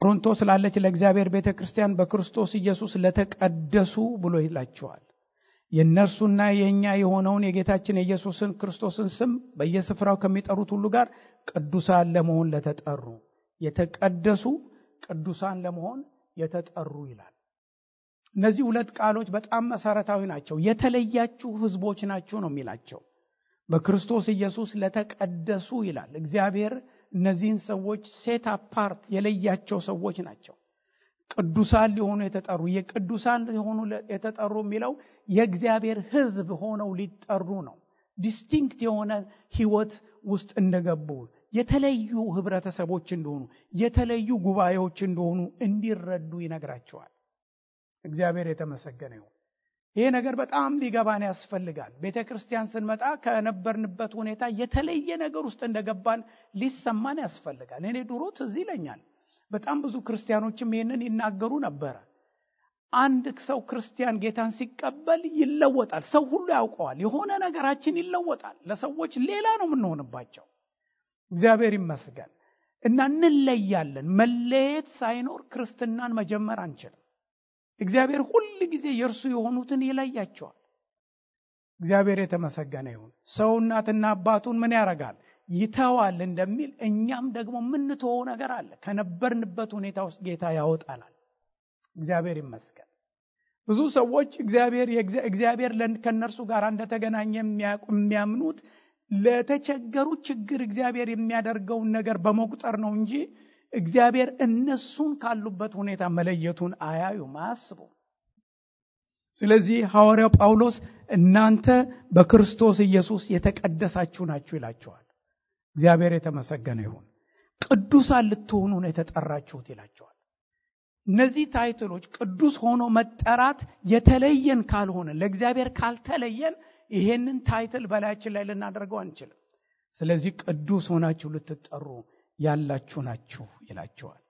በቆሮንቶስ ላለች ለእግዚአብሔር ቤተክርስቲያን በክርስቶስ ኢየሱስ ለተቀደሱ ብሎ ይላቸዋል። የእነርሱና የኛ የሆነውን የጌታችን የኢየሱስን ክርስቶስን ስም በየስፍራው ከሚጠሩት ሁሉ ጋር ቅዱሳን ለመሆን ለተጠሩ፣ የተቀደሱ ቅዱሳን ለመሆን የተጠሩ ይላል። እነዚህ ሁለት ቃሎች በጣም መሰረታዊ ናቸው። የተለያችሁ ህዝቦች ናችሁ ነው የሚላቸው። በክርስቶስ ኢየሱስ ለተቀደሱ ይላል። እግዚአብሔር እነዚህን ሰዎች ሴት አፓርት የለያቸው ሰዎች ናቸው። ቅዱሳን ሊሆኑ የተጠሩ፣ የቅዱሳን ሊሆኑ የተጠሩ የሚለው የእግዚአብሔር ህዝብ ሆነው ሊጠሩ ነው። ዲስቲንክት የሆነ ህይወት ውስጥ እንደገቡ፣ የተለዩ ህብረተሰቦች እንደሆኑ፣ የተለዩ ጉባኤዎች እንደሆኑ እንዲረዱ ይነግራቸዋል። እግዚአብሔር የተመሰገነ ይሁን። ይሄ ነገር በጣም ሊገባን ያስፈልጋል። ቤተክርስቲያን ስንመጣ ከነበርንበት ሁኔታ የተለየ ነገር ውስጥ እንደገባን ሊሰማን ያስፈልጋል። እኔ ድሮ ትዝ ይለኛል በጣም ብዙ ክርስቲያኖችም ይሄንን ይናገሩ ነበር። አንድ ሰው ክርስቲያን ጌታን ሲቀበል ይለወጣል። ሰው ሁሉ ያውቀዋል። የሆነ ነገራችን ይለወጣል። ለሰዎች ሌላ ነው የምንሆንባቸው። እግዚአብሔር ይመስገን። እና እንለያለን። መለየት ሳይኖር ክርስትናን መጀመር አንችልም። እግዚአብሔር ሁሉ ጊዜ የእርሱ የሆኑትን ይለያቸዋል። እግዚአብሔር የተመሰገነ ይሁን። ሰው እናትና አባቱን ምን ያደርጋል? ይተዋል እንደሚል እኛም ደግሞ የምንተወው ነገር አለ። ከነበርንበት ሁኔታ ውስጥ ጌታ ያወጣናል። እግዚአብሔር ይመስገን። ብዙ ሰዎች እግዚአብሔር ከነርሱ ጋር እንደተገናኘ የሚያምኑት ለተቸገሩ ችግር እግዚአብሔር የሚያደርገውን ነገር በመቁጠር ነው እንጂ እግዚአብሔር እነሱን ካሉበት ሁኔታ መለየቱን አያዩም፣ አያስቡም። ስለዚህ ሐዋርያው ጳውሎስ እናንተ በክርስቶስ ኢየሱስ የተቀደሳችሁ ናችሁ ይላቸዋል። እግዚአብሔር የተመሰገነ ይሁን። ቅዱሳን ልትሆኑ ነው የተጠራችሁት ይላቸዋል። እነዚህ ታይትሎች ቅዱስ ሆኖ መጠራት የተለየን ካልሆነ፣ ለእግዚአብሔር ካልተለየን ይሄንን ታይትል በላያችን ላይ ልናደርገው አንችልም። ስለዚህ ቅዱስ ሆናችሁ ልትጠሩ ያላችሁ ናችሁ ይላቸዋል።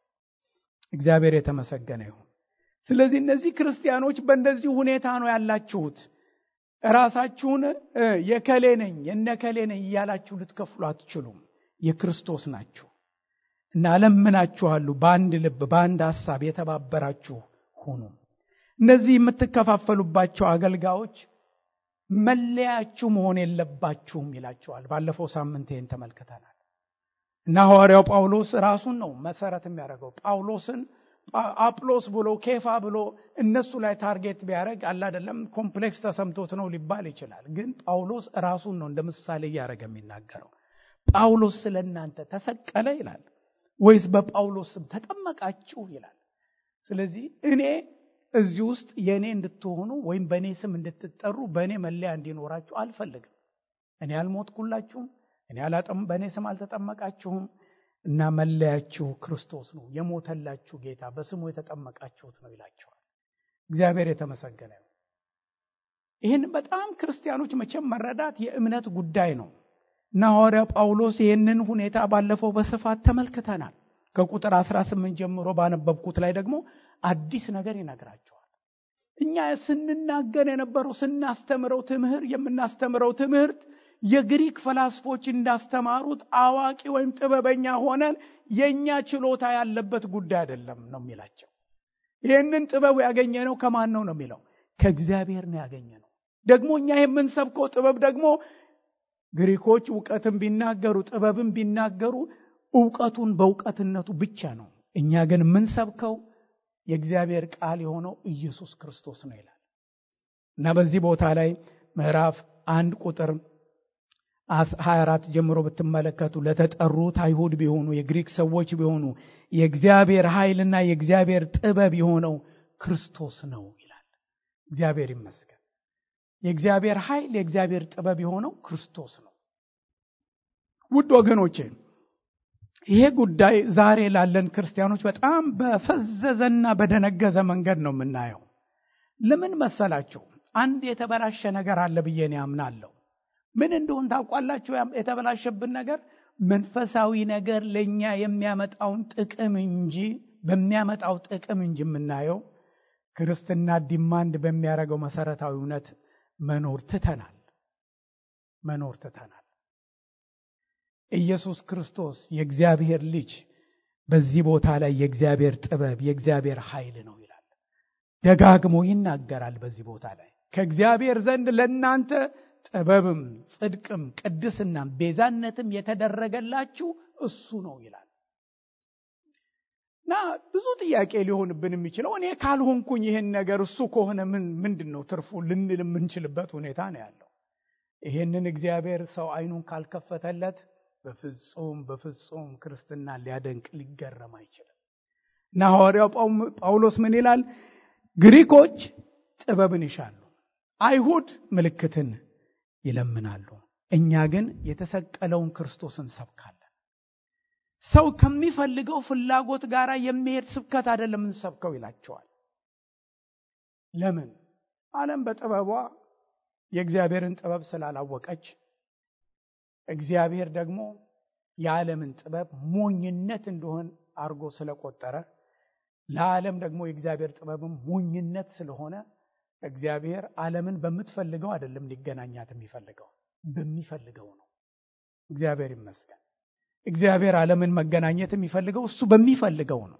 እግዚአብሔር የተመሰገነ ይሁን። ስለዚህ እነዚህ ክርስቲያኖች በእንደዚህ ሁኔታ ነው ያላችሁት። ራሳችሁን የከሌ ነኝ የነከሌ ነኝ እያላችሁ ልትከፍሉ አትችሉም። የክርስቶስ ናችሁ እና አለምናችኋለሁ በአንድ ልብ በአንድ ሐሳብ የተባበራችሁ ሁኑ። እነዚህ የምትከፋፈሉባቸው አገልጋዮች መለያችሁ መሆን የለባችሁም ይላቸዋል። ባለፈው ሳምንት ይሄን ተመልክተናል። እና ሐዋርያው ጳውሎስ ራሱን ነው መሰረት የሚያደርገው። ጳውሎስን አጵሎስ ብሎ ኬፋ ብሎ እነሱ ላይ ታርጌት ቢያደርግ አለ አይደለም ኮምፕሌክስ ተሰምቶት ነው ሊባል ይችላል። ግን ጳውሎስ ራሱን ነው እንደ ምሳሌ ያደረገ የሚናገረው። ጳውሎስ ስለናንተ ተሰቀለ ይላል ወይስ በጳውሎስ ስም ተጠመቃችሁ ይላል። ስለዚህ እኔ እዚህ ውስጥ የኔ እንድትሆኑ ወይም በኔ ስም እንድትጠሩ በኔ መለያ እንዲኖራችሁ አልፈልግም። እኔ አልሞትኩላችሁም፣ እኔ በኔ ስም አልተጠመቃችሁም እና መለያችሁ ክርስቶስ ነው፣ የሞተላችሁ ጌታ፣ በስሙ የተጠመቃችሁት ነው ይላቸዋል። እግዚአብሔር የተመሰገነ ነው። ይህን በጣም ክርስቲያኖች መቼም መረዳት የእምነት ጉዳይ ነው እና ሐዋርያው ጳውሎስ ይህንን ሁኔታ ባለፈው በስፋት ተመልክተናል። ከቁጥር 18 ጀምሮ ባነበብኩት ላይ ደግሞ አዲስ ነገር ይነግራቸዋል። እኛ ስንናገር የነበረው የምናስተምረው ትምህርት የግሪክ ፈላስፎች እንዳስተማሩት አዋቂ ወይም ጥበበኛ ሆነን የኛ ችሎታ ያለበት ጉዳይ አይደለም ነው የሚላቸው። ይሄንን ጥበብ ያገኘነው ከማን ነው የሚለው? ከእግዚአብሔር ነው ያገኘነው። ደግሞ እኛ የምንሰብከው ጥበብ ደግሞ ግሪኮች ዕውቀትን ቢናገሩ ጥበብን ቢናገሩ ዕውቀቱን በዕውቀትነቱ ብቻ ነው። እኛ ግን የምንሰብከው የእግዚአብሔር ቃል የሆነው ኢየሱስ ክርስቶስ ነው ይላል እና በዚህ ቦታ ላይ ምዕራፍ 1 ቁጥር 24 ጀምሮ ብትመለከቱ ለተጠሩት አይሁድ ቢሆኑ የግሪክ ሰዎች ቢሆኑ የእግዚአብሔር ኃይልና የእግዚአብሔር ጥበብ የሆነው ክርስቶስ ነው ይላል። እግዚአብሔር ይመስገን። የእግዚአብሔር ኃይል የእግዚአብሔር ጥበብ የሆነው ክርስቶስ ነው። ውድ ወገኖቼ ይሄ ጉዳይ ዛሬ ላለን ክርስቲያኖች በጣም በፈዘዘና በደነገዘ መንገድ ነው የምናየው። ለምን መሰላችሁ? አንድ የተበላሸ ነገር አለ ብዬ ነው ያምናለሁ። ምን እንደሆነ ታውቃላችሁ? የተበላሸብን ነገር መንፈሳዊ ነገር ለኛ የሚያመጣውን ጥቅም እንጂ በሚያመጣው ጥቅም እንጂ የምናየው ክርስትና ዲማንድ በሚያደርገው መሰረታዊ እውነት መኖር ትተናል። ኢየሱስ ክርስቶስ የእግዚአብሔር ልጅ በዚህ ቦታ ላይ የእግዚአብሔር ጥበብ የእግዚአብሔር ኃይል ነው ይላል። ደጋግሞ ይናገራል። በዚህ ቦታ ላይ ከእግዚአብሔር ዘንድ ለእናንተ ጥበብም ጽድቅም ቅድስናም ቤዛነትም የተደረገላችሁ እሱ ነው ይላል። እና ብዙ ጥያቄ ሊሆንብን የሚችለው እኔ ካልሆንኩኝ ይሄን ነገር እሱ ከሆነ ምንድነው ትርፉ ልንል የምንችልበት ሁኔታ ነው ያለው። ይሄንን እግዚአብሔር ሰው አይኑን ካልከፈተለት በፍጹም ክርስትና ሊያደንቅ ሊገረም አይችልም። እና ሐዋርያው ጳውሎስ ምን ይላል? ግሪኮች ጥበብን ይሻሉ፣ አይሁድ ምልክትን ይለምናሉ፣ እኛ ግን የተሰቀለውን ክርስቶስን ሰብካለን። ሰው ከሚፈልገው ፍላጎት ጋር የሚሄድ ስብከት አይደለም እንሰብከው ይላቸዋል። ለምን? ዓለም በጥበቧ የእግዚአብሔርን ጥበብ ስላላወቀች፣ እግዚአብሔር ደግሞ የዓለምን ጥበብ ሞኝነት እንደሆነ አርጎ ስለቆጠረ፣ ለዓለም ደግሞ የእግዚአብሔር ጥበብም ሞኝነት ስለሆነ እግዚአብሔር ዓለምን በምትፈልገው አይደለም ሊገናኛት የሚፈልገው፣ በሚፈልገው ነው። እግዚአብሔር ይመስገን። እግዚአብሔር ዓለምን መገናኘት የሚፈልገው እሱ በሚፈልገው ነው።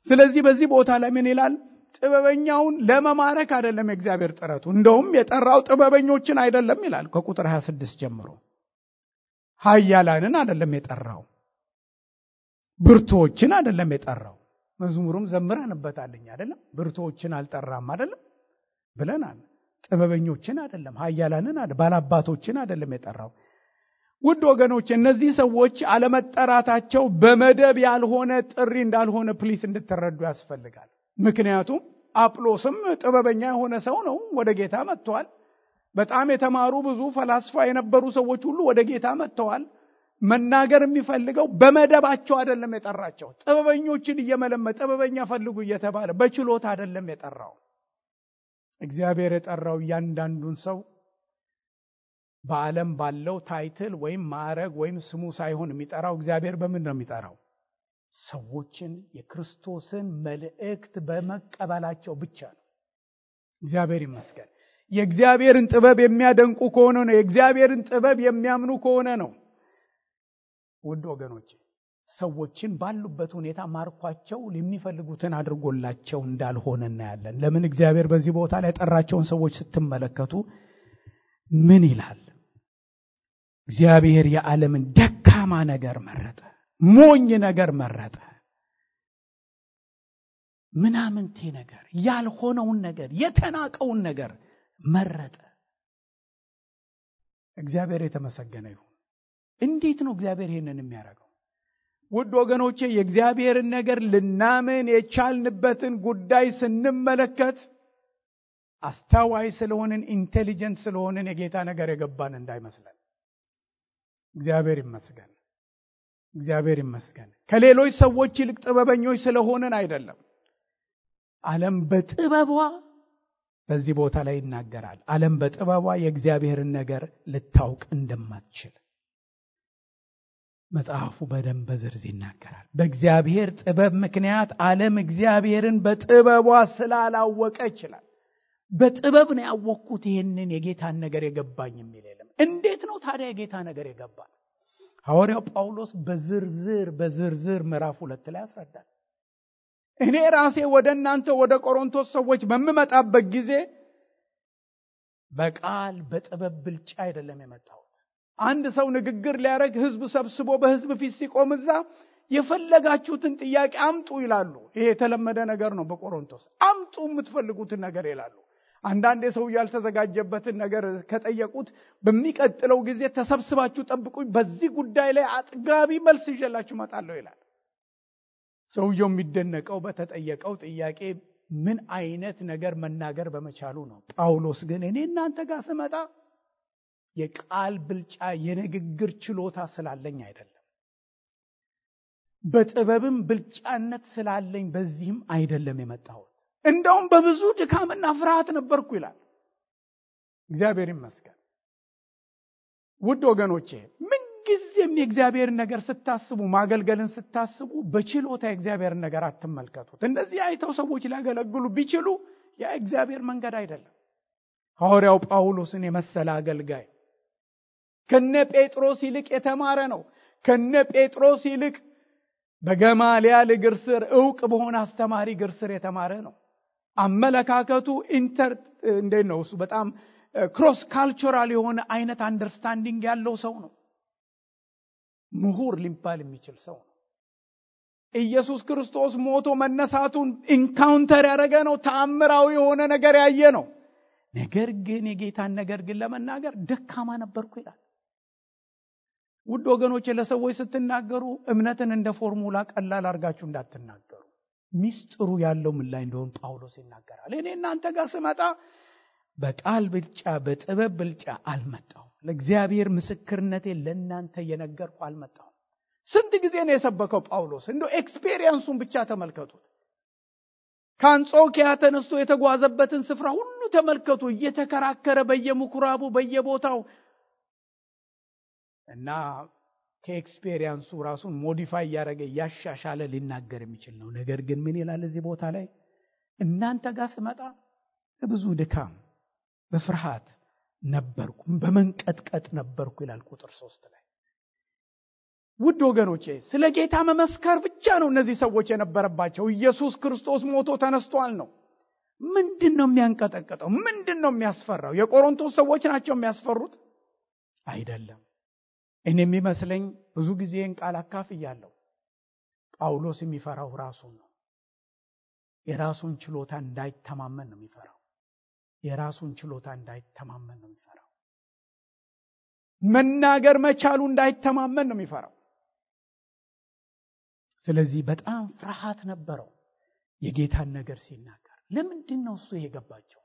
ስለዚህ በዚህ ቦታ ላይ ምን ይላል? ጥበበኛውን ለመማረክ አይደለም የእግዚአብሔር ጥረቱ። እንደውም የጠራው ጥበበኞችን አይደለም ይላል ከቁጥር 26 ጀምሮ። ኃያላንን አይደለም የጠራው፣ ብርቱዎችን አይደለም የጠራው። መዝሙሩም ዘምረንበታልኝ አይደለም? ብርቱዎችን አልጠራም አይደለም ብለናል። ጥበበኞችን አይደለም፣ ኃያላንን አይደለም፣ ባላባቶችን አይደለም የጠራው። ውድ ወገኖች እነዚህ ሰዎች አለመጠራታቸው በመደብ ያልሆነ ጥሪ እንዳልሆነ ፕሊስ እንድትረዱ ያስፈልጋል። ምክንያቱም አጵሎስም ጥበበኛ የሆነ ሰው ነው፣ ወደ ጌታ መጥቷል። በጣም የተማሩ ብዙ ፈላስፋ የነበሩ ሰዎች ሁሉ ወደ ጌታ መጥተዋል። መናገር የሚፈልገው በመደባቸው አይደለም የጠራቸው። ጥበበኞችን እየመለመ ጥበበኛ ፈልጉ እየተባለ በችሎታ አይደለም የጠራው። እግዚአብሔር የጠራው እያንዳንዱን ሰው በዓለም ባለው ታይትል ወይም ማዕረግ ወይም ስሙ ሳይሆን የሚጠራው እግዚአብሔር በምን ነው የሚጠራው? ሰዎችን የክርስቶስን መልእክት በመቀበላቸው ብቻ ነው። እግዚአብሔር ይመስገን። የእግዚአብሔርን ጥበብ የሚያደንቁ ከሆነ ነው፣ የእግዚአብሔርን ጥበብ የሚያምኑ ከሆነ ነው። ውድ ወገኖች ሰዎችን ባሉበት ሁኔታ ማርኳቸው የሚፈልጉትን አድርጎላቸው እንዳልሆነ እናያለን። ለምን? እግዚአብሔር በዚህ ቦታ ላይ የጠራቸውን ሰዎች ስትመለከቱ ምን ይላል? እግዚአብሔር የዓለምን ደካማ ነገር መረጠ፣ ሞኝ ነገር መረጠ፣ ምናምንቴ ነገር፣ ያልሆነውን ነገር፣ የተናቀውን ነገር መረጠ። እግዚአብሔር የተመሰገነ ይሁን። እንዴት ነው እግዚአብሔር ይሄንን የሚያደርገው? ውድ ወገኖቼ የእግዚአብሔርን ነገር ልናምን የቻልንበትን ጉዳይ ስንመለከት አስተዋይ ስለሆንን ኢንቴሊጀንት ስለሆንን የጌታ ነገር የገባን እንዳይመስለን። እግዚአብሔር ይመስገን። እግዚአብሔር ይመስገን። ከሌሎች ሰዎች ይልቅ ጥበበኞች ስለሆንን አይደለም። ዓለም በጥበቧ በዚህ ቦታ ላይ ይናገራል። ዓለም በጥበቧ የእግዚአብሔርን ነገር ልታውቅ እንደማትችል መጽሐፉ በደንብ በዝርዝር ይናገራል። በእግዚአብሔር ጥበብ ምክንያት ዓለም እግዚአብሔርን በጥበቧ ስላላወቀ ይችላል። በጥበብ ነው ያወቅኩት ይሄንን የጌታን ነገር የገባኝ የሚል የለም። እንዴት ነው ታዲያ የጌታ ነገር የገባን? ሐዋርያው ጳውሎስ በዝርዝር ምዕራፍ 2 ላይ ያስረዳል። እኔ ራሴ ወደ እናንተ ወደ ቆሮንቶስ ሰዎች በመመጣበት ጊዜ በቃል በጥበብ ብልጫ አይደለም የመጣሁት። አንድ ሰው ንግግር ሊያደርግ ህዝብ ሰብስቦ በህዝብ ፊት ሲቆም እዛ የፈለጋችሁትን ጥያቄ አምጡ ይላሉ። ይሄ የተለመደ ነገር ነው በቆሮንቶስ። አምጡ የምትፈልጉትን ነገር ይላሉ። አንዳንድ ሰው ያልተዘጋጀበትን ነገር ከጠየቁት በሚቀጥለው ጊዜ ተሰብስባችሁ ጠብቁኝ፣ በዚህ ጉዳይ ላይ አጥጋቢ መልስ ይዤላችሁ እመጣለሁ ይላል። ሰውየው የሚደነቀው በተጠየቀው ጥያቄ ምን አይነት ነገር መናገር በመቻሉ ነው። ጳውሎስ ግን እኔ እናንተ ጋር ስመጣ የቃል ብልጫ የንግግር ችሎታ ስላለኝ አይደለም፣ በጥበብም ብልጫነት ስላለኝ በዚህም አይደለም የመጣሁት። እንደውም በብዙ ድካምና ፍርሃት ነበርኩ ይላል። እግዚአብሔር ይመስገን። ውድ ወገኖቼ ምንጊዜም የእግዚአብሔር ነገር ስታስቡ፣ ማገልገልን ስታስቡ በችሎታ የእግዚአብሔር ነገር አትመልከቱት። እንደዚህ አይተው ሰዎች ሊያገለግሉ ቢችሉ ያ እግዚአብሔር መንገድ አይደለም። ሐዋርያው ጳውሎስን የመሰለ አገልጋይ ከነ ጴጥሮስ ይልቅ የተማረ ነው። ከነ ጴጥሮስ ይልቅ በገማልያል እግር ስር ዕውቅ በሆነ አስተማሪ እግር ስር የተማረ ነው። አመለካከቱ ነው እሱ በጣም ክሮስ ካልቸራል የሆነ አይነት አንደርስታንዲንግ ያለው ሰው ነው። ምሁር ሊባል የሚችል ሰው ነው። ኢየሱስ ክርስቶስ ሞቶ መነሳቱን ኢንካውንተር ያደረገ ነው። ተአምራዊ የሆነ ነገር ያየ ነው። ነገር ግን የጌታን ነገር ግን ለመናገር ደካማ ነበርኩ ይላል። ውድ ወገኖቼ ለሰዎች ስትናገሩ እምነትን እንደ ፎርሙላ ቀላል አድርጋችሁ እንዳትናገሩ። ሚስጥሩ ያለው ምን ላይ እንደሆነ ጳውሎስ ይናገራል። እኔ እናንተ ጋር ስመጣ በቃል ብልጫ በጥበብ ብልጫ አልመጣሁም። ለእግዚአብሔር ምስክርነቴን ለእናንተ የነገርኩ አልመጣሁም። ስንት ጊዜ ነው የሰበከው ጳውሎስ? እንደው ኤክስፔሪየንሱን ብቻ ተመልከቱት። ከአንጾኪያ ተነስቶ የተጓዘበትን ስፍራ ሁሉ ተመልከቱ። እየተከራከረ በየምኩራቡ በየቦታው እና ከኤክስፔሪየንሱ ራሱን ሞዲፋይ ያደረገ ያሻሻለ ሊናገር የሚችል ነው። ነገር ግን ምን ይላል እዚህ ቦታ ላይ? እናንተ ጋር ስመጣ በብዙ ድካም በፍርሃት ነበርኩ፣ በመንቀጥቀጥ ነበርኩ ይላል ቁጥር 3 ላይ። ውድ ወገኖቼ ስለ ጌታ መመስከር ብቻ ነው እነዚህ ሰዎች የነበረባቸው። ኢየሱስ ክርስቶስ ሞቶ ተነስቷል ነው። ምንድነው የሚያንቀጠቀጠው? ምንድነው የሚያስፈራው? የቆሮንቶስ ሰዎች ናቸው የሚያስፈሩት? አይደለም። እኔ የሚመስለኝ ብዙ ጊዜ ቃል አካፍያለሁ። ጳውሎስ የሚፈራው ራሱን ነው። የራሱን ችሎታ እንዳይተማመን ነው የሚፈራው። የራሱን ችሎታ እንዳይተማመን ነው የሚፈራው። መናገር መቻሉ እንዳይተማመን ነው የሚፈራው። ስለዚህ በጣም ፍርሃት ነበረው የጌታን ነገር ሲናገር። ለምንድን ነው እሱ የገባቸው?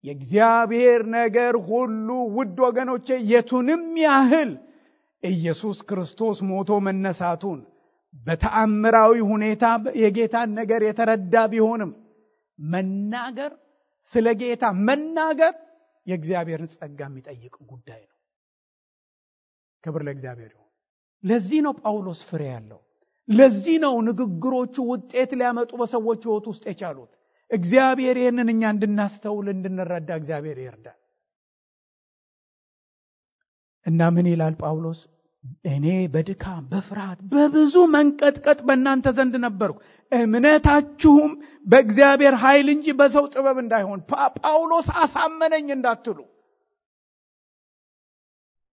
የእግዚአብሔር ነገር ሁሉ ውድ ወገኖቼ የቱንም ያህል ኢየሱስ ክርስቶስ ሞቶ መነሳቱን በተአምራዊ ሁኔታ የጌታን ነገር የተረዳ ቢሆንም መናገር ስለ ጌታ መናገር የእግዚአብሔርን ጸጋ የሚጠይቅ ጉዳይ ነው። ክብር ለእግዚአብሔር ይሁን። ለዚህ ነው ጳውሎስ ፍሬ ያለው። ለዚህ ነው ንግግሮቹ ውጤት ሊያመጡ በሰዎች ሕይወት ውስጥ የቻሉት። እግዚአብሔር ይህንን እኛ እንድናስተውል እንድንረዳ እግዚአብሔር ይርዳል። እና ምን ይላል ጳውሎስ? እኔ በድካም በፍርሃት በብዙ መንቀጥቀጥ በእናንተ ዘንድ ነበርኩ፣ እምነታችሁም በእግዚአብሔር ኃይል እንጂ በሰው ጥበብ እንዳይሆን። ጳውሎስ አሳመነኝ እንዳትሉ።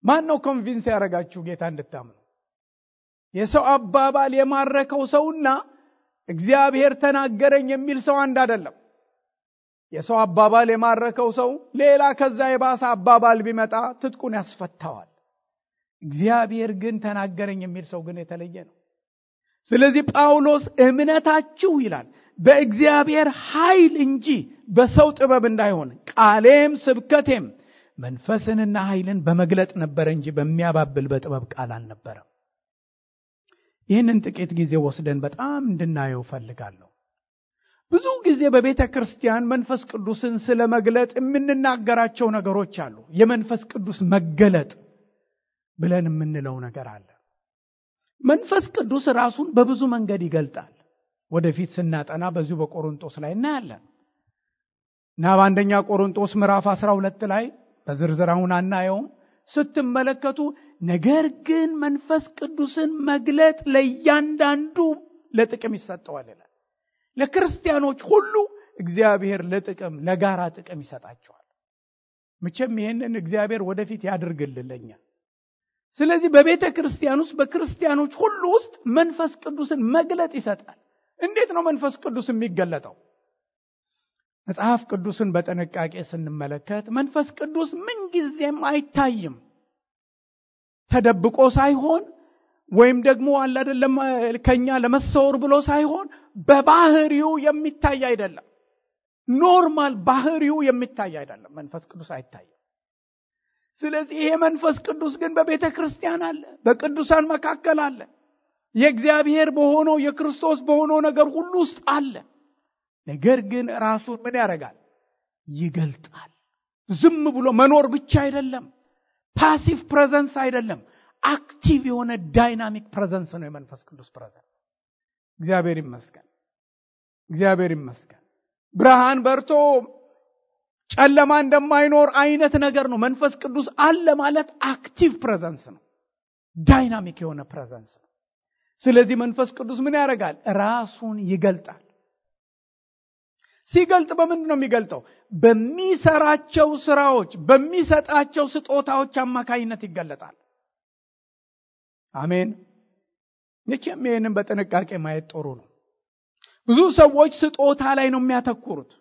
ማን ነው ኮንቪንስ ያደረጋችሁ ጌታ እንድታምኑ? የሰው አባባል የማረከው ሰውና እግዚአብሔር ተናገረኝ የሚል ሰው አንድ አይደለም። የሰው አባባል የማረከው ሰው ሌላ ከዛ የባሰ አባባል ቢመጣ ትጥቁን ያስፈታዋል። እግዚአብሔር ግን ተናገረኝ የሚል ሰው ግን የተለየ ነው። ስለዚህ ጳውሎስ እምነታችሁ ይላል በእግዚአብሔር ኃይል እንጂ በሰው ጥበብ እንዳይሆን፣ ቃሌም ስብከቴም መንፈስንና ኃይልን በመግለጥ ነበር እንጂ በሚያባብል በጥበብ ቃል አልነበረም። ይህንን ጥቂት ጊዜ ወስደን በጣም እንድናየው ፈልጋለሁ። ብዙ ጊዜ በቤተ ክርስቲያን መንፈስ ቅዱስን ስለ መግለጥ የምንናገራቸው ነገሮች አሉ። የመንፈስ ቅዱስ መገለጥ ብለን የምንለው ነገር አለ። መንፈስ ቅዱስ ራሱን በብዙ መንገድ ይገልጣል። ወደፊት ስናጠና በዚሁ በቆሮንቶስ ላይ እናያለን። እና በአንደኛ ቆሮንቶስ ምዕራፍ 12 ላይ በዝርዝር አሁን አናየውም። ስትመለከቱ ነገር ግን መንፈስ ቅዱስን መግለጥ ለእያንዳንዱ ለጥቅም ይሰጠዋል ይላል። ለክርስቲያኖች ሁሉ እግዚአብሔር ለጥቅም ለጋራ ጥቅም ይሰጣቸዋል። መቼም ይሄንን እግዚአብሔር ወደፊት ያድርግልልኛ። ስለዚህ በቤተ ክርስቲያን ውስጥ በክርስቲያኖች ሁሉ ውስጥ መንፈስ ቅዱስን መግለጥ ይሰጣል። እንዴት ነው መንፈስ ቅዱስ የሚገለጠው? መጽሐፍ ቅዱስን በጥንቃቄ ስንመለከት መንፈስ ቅዱስ ምንጊዜም አይታይም። ተደብቆ ሳይሆን ወይም ደግሞ አለ አይደለም ከኛ ለመሰወር ብሎ ሳይሆን በባህሪው የሚታይ አይደለም። ኖርማል ባህሪው የሚታይ አይደለም። መንፈስ ቅዱስ አይታይም። ስለዚህ ይሄ መንፈስ ቅዱስ ግን በቤተ ክርስቲያን አለ፣ በቅዱሳን መካከል አለ። የእግዚአብሔር በሆነው የክርስቶስ በሆነው ነገር ሁሉ ውስጥ አለ። ነገር ግን ራሱን ምን ያደርጋል? ይገልጣል። ዝም ብሎ መኖር ብቻ አይደለም። ፓሲቭ ፕሬዘንስ አይደለም። አክቲቭ የሆነ ዳይናሚክ ፕሬዘንስ ነው የመንፈስ ቅዱስ ፕሬዘንስ። እግዚአብሔር ይመስገን። እግዚአብሔር ይመስገን። ብርሃን በርቶ ጨለማ እንደማይኖር አይነት ነገር ነው። መንፈስ ቅዱስ አለ ማለት አክቲቭ ፕሬዘንስ ነው። ዳይናሚክ የሆነ ፕሬዘንስ ነው። ስለዚህ መንፈስ ቅዱስ ምን ያደርጋል? ራሱን ይገልጣል። ሲገልጥ በምንድን ነው የሚገልጠው? በሚሰራቸው ስራዎች፣ በሚሰጣቸው ስጦታዎች አማካይነት ይገለጣል። አሜን። ይህንን በጥንቃቄ ማየት ጥሩ ነው። ብዙ ሰዎች ስጦታ ላይ ነው የሚያተኩሩት።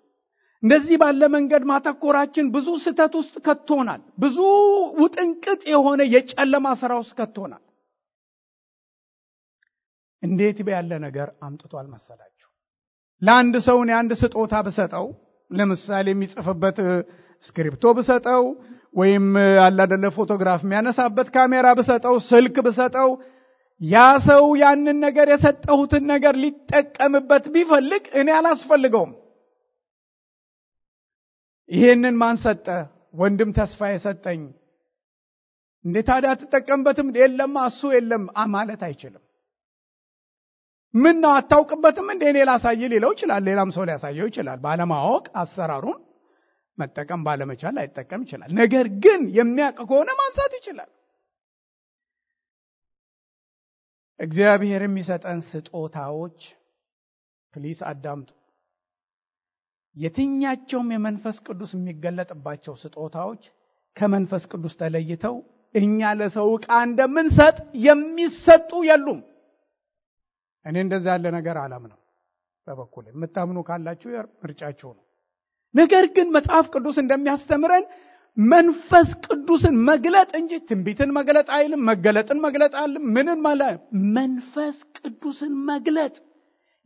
እንደዚህ ባለ መንገድ ማተኮራችን ብዙ ስህተት ውስጥ ከቶናል። ብዙ ውጥንቅጥ የሆነ የጨለማ ስራ ውስጥ ከቶናል። እንዴት ያለ ነገር አምጥቷል መሰላችሁ? ለአንድ ሰው አንድ ስጦታ ብሰጠው፣ ለምሳሌ የሚጽፍበት ስክሪፕቶ ብሰጠው፣ ወይም አላደለ ፎቶግራፍ የሚያነሳበት ካሜራ ብሰጠው፣ ስልክ ብሰጠው፣ ያ ሰው ያንን ነገር የሰጠሁትን ነገር ሊጠቀምበት ቢፈልግ እኔ አላስፈልገውም። ይሄንን ማን ሰጠ? ወንድም ተስፋ የሰጠኝ። እንዴት ታዲያ አትጠቀምበትም? የለም እሱ የለም ማለት አይችልም። ምን ነው አታውቅበትም እንዴ? እኔ ላሳይ ሊለው ይችላል። ሌላም ሰው ሊያሳየው ይችላል። ባለማወቅ አሰራሩን መጠቀም ባለመቻል ላይጠቀም ይችላል። ነገር ግን የሚያውቅ ከሆነ ማንሳት ይችላል። እግዚአብሔር የሚሰጠን ስጦታዎች ፕሊስ አዳምጡ። የትኛቸውም የመንፈስ ቅዱስ የሚገለጥባቸው ስጦታዎች ከመንፈስ ቅዱስ ተለይተው እኛ ለሰው ዕቃ እንደምንሰጥ የሚሰጡ የሉም። እኔ እንደዛ ያለ ነገር አላምንም። በበኩሌ የምታምኑ ካላችሁ ምርጫችሁ ነው። ነገር ግን መጽሐፍ ቅዱስ እንደሚያስተምረን መንፈስ ቅዱስን መግለጥ እንጂ ትንቢትን መግለጥ አይልም። መገለጥን መግለጥ አይልም። ምንን ማለት መንፈስ ቅዱስን መግለጥ፣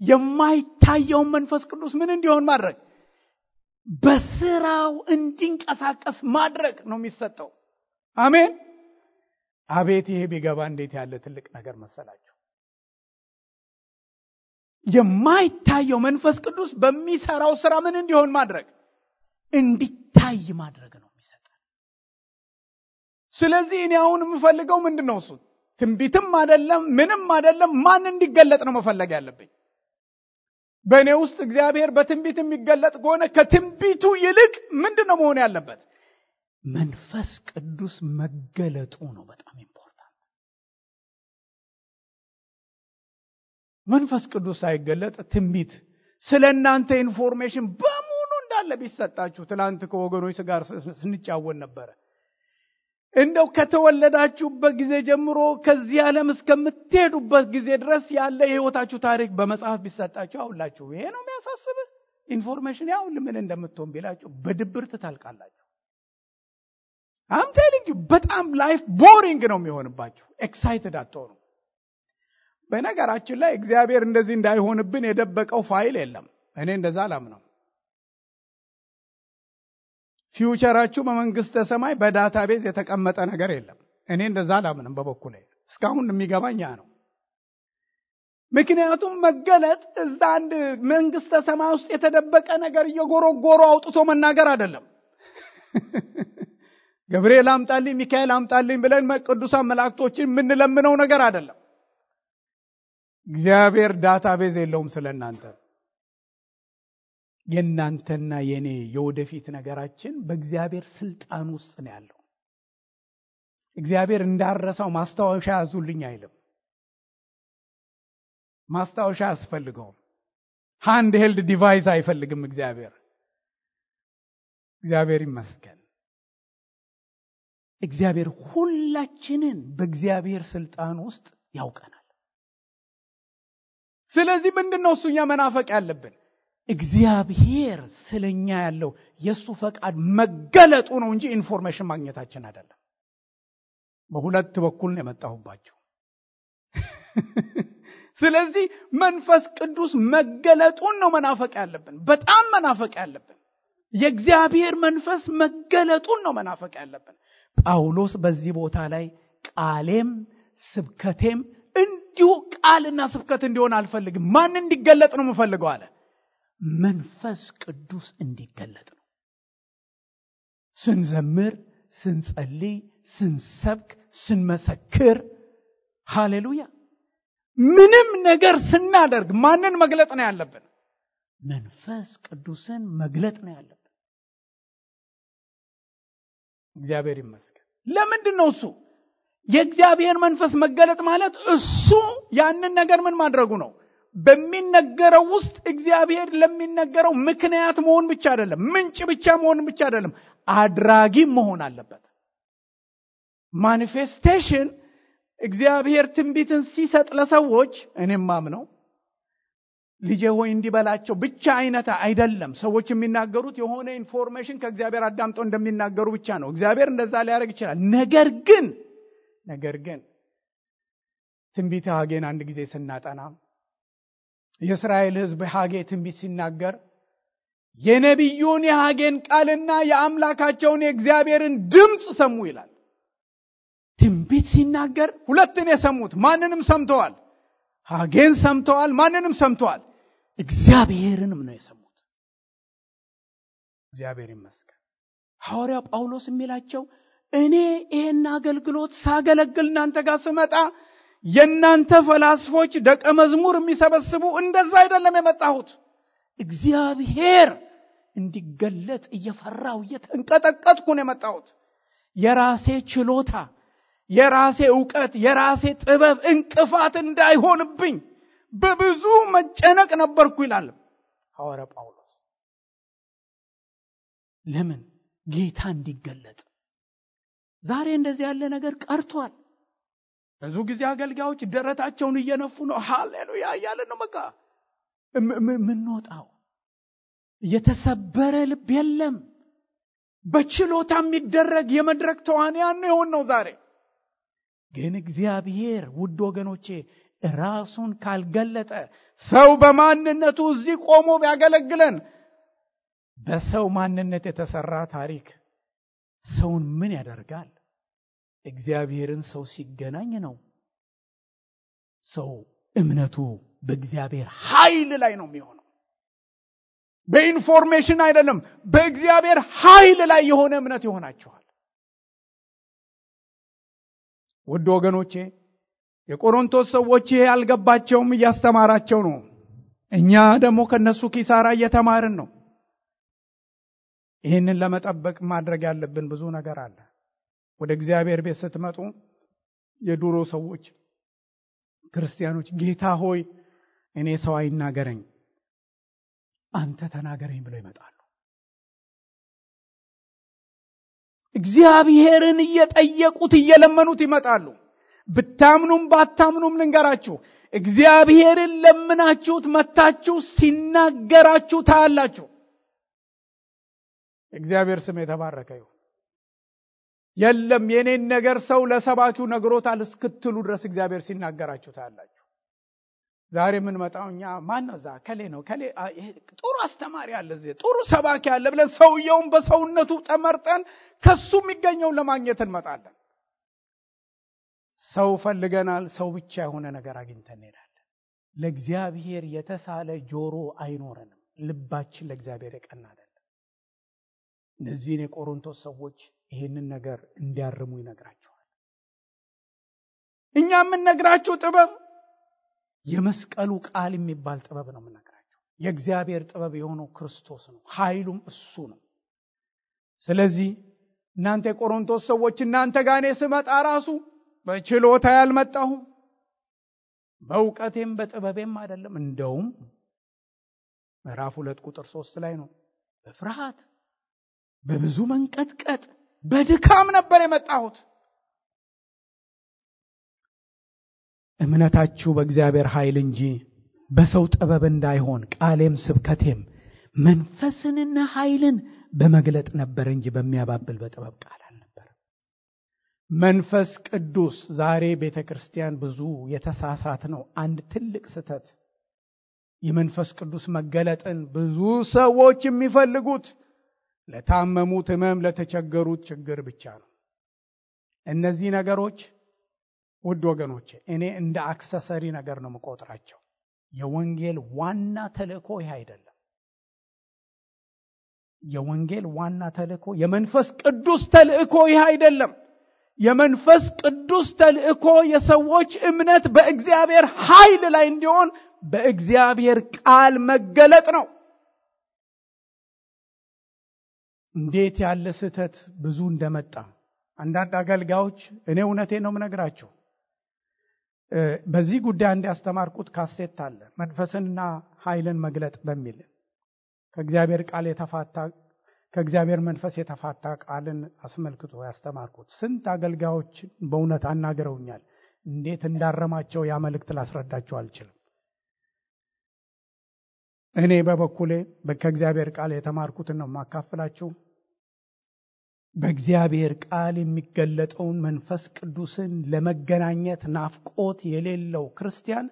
የማይታየውን መንፈስ ቅዱስ ምን እንዲሆን ማድረግ፣ በስራው እንዲንቀሳቀስ ማድረግ ነው የሚሰጠው። አሜን። አቤት ይሄ ቢገባ እንዴት ያለ ትልቅ ነገር መሰላችሁ! የማይታየው መንፈስ ቅዱስ በሚሰራው ስራ ምን እንዲሆን ማድረግ፣ እንዲታይ ማድረግ ነው የሚሰጠው። ስለዚህ እኔ አሁን የምፈልገው ምንድነው? እሱ ትንቢትም አይደለም ምንም አይደለም። ማን እንዲገለጥ ነው መፈለግ ያለብኝ? በእኔ ውስጥ እግዚአብሔር በትንቢት የሚገለጥ ከሆነ ከትንቢቱ ይልቅ ምንድነው መሆን ያለበት? መንፈስ ቅዱስ መገለጡ ነው በጣም ኢምፖርታንት። መንፈስ ቅዱስ ሳይገለጥ ትንቢት ስለ እናንተ ኢንፎርሜሽን በሙሉ እንዳለ ቢሰጣችሁ፣ ትላንት ከወገኖች ጋር ስንጫወት ነበረ። እንደው ከተወለዳችሁበት ጊዜ ጀምሮ ከዚህ ዓለም እስከምትሄዱበት ጊዜ ድረስ ያለ የህይወታችሁ ታሪክ በመጽሐፍ ቢሰጣችሁ አውላችሁ ይሄ ነው የሚያሳስብህ ኢንፎርሜሽን ያው ምን እንደምትሆን ቢላችሁ በድብርት ታልቃላችሁ። I'm telling you በጣም ላይፍ ቦሪንግ ነው የሚሆንባችሁ። ኤክሳይትድ አትሆኑ። በነገራችን ላይ እግዚአብሔር እንደዚህ እንዳይሆንብን የደበቀው ፋይል የለም። እኔ እንደዛ አላምነው። ፊውቸራችሁ በመንግስተ ሰማይ በዳታቤዝ የተቀመጠ ነገር የለም። እኔ እንደዛ አላምንም በበኩሌ። እስካሁን የሚገባኝ ያ ነው። ምክንያቱም መገለጥ እዛ አንድ መንግስተ ሰማይ ውስጥ የተደበቀ ነገር እየጎረጎሩ አውጥቶ መናገር አይደለም። ገብርኤል አምጣልኝ፣ ሚካኤል አምጣልኝ ብለን ቅዱሳን መላእክቶችን የምንለምነው ነገር አይደለም። እግዚአብሔር ዳታቤዝ የለውም ስለናንተ። የናንተና የኔ የወደፊት ነገራችን በእግዚአብሔር ስልጣን ውስጥ ነው ያለው። እግዚአብሔር እንዳረሳው ማስታወሻ ያዙልኝ አይልም። ማስታወሻ ያስፈልገው። ሃንድ ሄልድ ዲቫይስ አይፈልግም እግዚአብሔር። እግዚአብሔር ይመስገን። እግዚአብሔር ሁላችንን በእግዚአብሔር ስልጣን ውስጥ ያውቀናል። ስለዚህ ምንድነው እሱኛ መናፈቅ ያለብን? እግዚአብሔር ስለኛ ያለው የሱ ፈቃድ መገለጡ ነው እንጂ ኢንፎርሜሽን ማግኘታችን አይደለም። በሁለት በኩል ነው የመጣሁባችሁ። ስለዚህ መንፈስ ቅዱስ መገለጡን ነው መናፈቅ ያለብን። በጣም መናፈቅ ያለብን የእግዚአብሔር መንፈስ መገለጡን ነው መናፈቅ ያለብን። ጳውሎስ በዚህ ቦታ ላይ ቃሌም ስብከቴም እንዲሁ ቃልና ስብከት እንዲሆን አልፈልግም። ማን እንዲገለጥ ነው የምፈልገው አለ? መንፈስ ቅዱስ እንዲገለጥ ነው። ስንዘምር፣ ስንጸልይ፣ ስንሰብክ፣ ስንመሰክር፣ ሃሌሉያ፣ ምንም ነገር ስናደርግ ማንን መግለጥ ነው ያለብን? መንፈስ ቅዱስን መግለጥ ነው ያለብን። እግዚአብሔር ይመስገን። ለምንድን ነው እሱ? የእግዚአብሔር መንፈስ መገለጥ ማለት እሱ ያንን ነገር ምን ማድረጉ ነው? በሚነገረው ውስጥ እግዚአብሔር ለሚነገረው ምክንያት መሆን ብቻ አይደለም፣ ምንጭ ብቻ መሆን ብቻ አይደለም፣ አድራጊም መሆን አለበት። ማኒፌስቴሽን እግዚአብሔር ትንቢትን ሲሰጥ ለሰዎች እኔም ማምነው ልጄ ሆይ እንዲበላቸው ብቻ አይነት አይደለም። ሰዎች የሚናገሩት የሆነ ኢንፎርሜሽን ከእግዚአብሔር አዳምጠው እንደሚናገሩ ብቻ ነው። እግዚአብሔር እንደዛ ሊያደርግ ይችላል። ነገር ግን ትንቢተ ሐጌን አንድ ጊዜ ስናጠና የእስራኤል ሕዝብ ሐጌ ትንቢት ሲናገር የነቢዩን የሐጌን ቃልና የአምላካቸውን የእግዚአብሔርን ድምፅ ሰሙ ይላል። ትንቢት ሲናገር ሁለትን የሰሙት ማንንም ሰምተዋል። ሐጌን ሰምተዋል፣ ማንንም ሰምተዋል። እግዚአብሔርንም ነው የሰሙት። እግዚአብሔር ይመስገን። ሐዋርያው ጳውሎስ የሚላቸው እኔ ይሄን አገልግሎት ሳገለግል እናንተ ጋር ስመጣ የናንተ ፈላስፎች ደቀ መዝሙር የሚሰበስቡ እንደዛ አይደለም የመጣሁት። እግዚአብሔር እንዲገለጥ እየፈራው እየተንቀጠቀጥኩ ነው የመጣሁት። የራሴ ችሎታ፣ የራሴ ዕውቀት፣ የራሴ ጥበብ እንቅፋት እንዳይሆንብኝ በብዙ መጨነቅ ነበርኩ ይላል ሐዋርያው ጳውሎስ። ለምን? ጌታ እንዲገለጥ። ዛሬ እንደዚህ ያለ ነገር ቀርቷል። ብዙ ጊዜ አገልጋዮች ደረታቸውን እየነፉ ነው ሃሌሉያ እያለ ነው በቃ ምን ወጣው። የተሰበረ ልብ የለም። በችሎታ የሚደረግ የመድረክ ተዋንያን ነው ዛሬ። ግን እግዚአብሔር ውድ ወገኖቼ ራሱን ካልገለጠ ሰው በማንነቱ እዚህ ቆሞ ቢያገለግለን በሰው ማንነት የተሰራ ታሪክ ሰውን ምን ያደርጋል? እግዚአብሔርን ሰው ሲገናኝ ነው ሰው እምነቱ በእግዚአብሔር ኃይል ላይ ነው የሚሆነው። በኢንፎርሜሽን አይደለም፣ በእግዚአብሔር ኃይል ላይ የሆነ እምነት ይሆናችኋል። ውድ ወገኖቼ የቆሮንቶስ ሰዎች ያልገባቸውም እያስተማራቸው ነው። እኛ ደግሞ ከነሱ ኪሳራ እየተማርን ነው። ይህንን ለመጠበቅ ማድረግ ያለብን ብዙ ነገር አለ። ወደ እግዚአብሔር ቤት ስትመጡ የድሮ ሰዎች ክርስቲያኖች ጌታ ሆይ እኔ ሰው አይናገረኝ አንተ ተናገረኝ ብለው ይመጣሉ። እግዚአብሔርን እየጠየቁት እየለመኑት ይመጣሉ። ብታምኑም ባታምኑም ልንገራችሁ፣ እግዚአብሔርን ለምናችሁት መታችሁ ሲናገራችሁ ታያላችሁ። እግዚአብሔር ስም የተባረከ ይሁን። የለም የኔን ነገር ሰው ለሰባኪው ነግሮታል እስክትሉ ድረስ እግዚአብሔር ሲናገራችሁ ታያላችሁ። ዛሬ ምን መጣው እኛ ማን ነው ዛ ከሌ ነው ከሌ ጥሩ አስተማሪ አለ እዚህ ጥሩ ሰባኪ አለ ብለን ሰውየውን በሰውነቱ ተመርጠን ከሱ የሚገኘው ለማግኘት እንመጣለን። ሰው ፈልገናል፣ ሰው ብቻ የሆነ ነገር አግኝተን እንሄዳለን። ለእግዚአብሔር የተሳለ ጆሮ አይኖረንም። ልባችን ለእግዚአብሔር የቀና አይደለም። እነዚህን የቆሮንቶስ ሰዎች ይሄንን ነገር እንዲያርሙ ይነግራቸዋል። እኛ የምንነግራቸው ጥበብ የመስቀሉ ቃል የሚባል ጥበብ ነው የምንነግራቸው። የእግዚአብሔር ጥበብ የሆነው ክርስቶስ ነው፣ ኃይሉም እሱ ነው። ስለዚህ እናንተ የቆሮንቶስ ሰዎች እናንተ ጋር እኔ ስመጣ ራሱ በችሎታ ያልመጣሁም በእውቀቴም በጥበቤም አይደለም። እንደውም ምዕራፍ 2 ቁጥር 3 ላይ ነው በፍርሃት በብዙ መንቀጥቀጥ በድካም ነበር የመጣሁት። እምነታችሁ በእግዚአብሔር ኃይል እንጂ በሰው ጥበብ እንዳይሆን ቃሌም ስብከቴም መንፈስንና ኃይልን በመግለጥ ነበር እንጂ በሚያባብል በጥበብ ቃል አልነበረም። መንፈስ ቅዱስ ዛሬ ቤተክርስቲያን ብዙ የተሳሳት ነው። አንድ ትልቅ ስህተት የመንፈስ ቅዱስ መገለጥን ብዙ ሰዎች የሚፈልጉት ለታመሙት ህመም፣ ለተቸገሩት ችግር ብቻ ነው። እነዚህ ነገሮች ውድ ወገኖቼ እኔ እንደ አክሰሰሪ ነገር ነው የምቆጥራቸው። የወንጌል ዋና ተልእኮ ይህ አይደለም። የወንጌል ዋና ተልእኮ የመንፈስ ቅዱስ ተልእኮ ይህ አይደለም። የመንፈስ ቅዱስ ተልእኮ የሰዎች እምነት በእግዚአብሔር ኃይል ላይ እንዲሆን በእግዚአብሔር ቃል መገለጥ ነው። እንዴት ያለ ስህተት ብዙ እንደመጣ አንዳንድ አገልጋዮች እኔ እውነቴን ነው የምነግራችሁ በዚህ ጉዳይ እንዲያስተማርኩት ካሴት አለ መንፈስንና ኃይልን መግለጥ በሚል ከእግዚአብሔር መንፈስ የተፋታ ቃልን አስመልክቶ ያስተማርኩት ስንት አገልጋዮች በእውነት አናገረውኛል እንዴት እንዳረማቸው ያ መልእክት ላስረዳቸው አልችልም እኔ በበኩሌ ከእግዚአብሔር ቃል የተማርኩትን ነው ማካፈላችሁ በእግዚአብሔር ቃል የሚገለጠውን መንፈስ ቅዱስን ለመገናኘት ናፍቆት የሌለው ክርስቲያን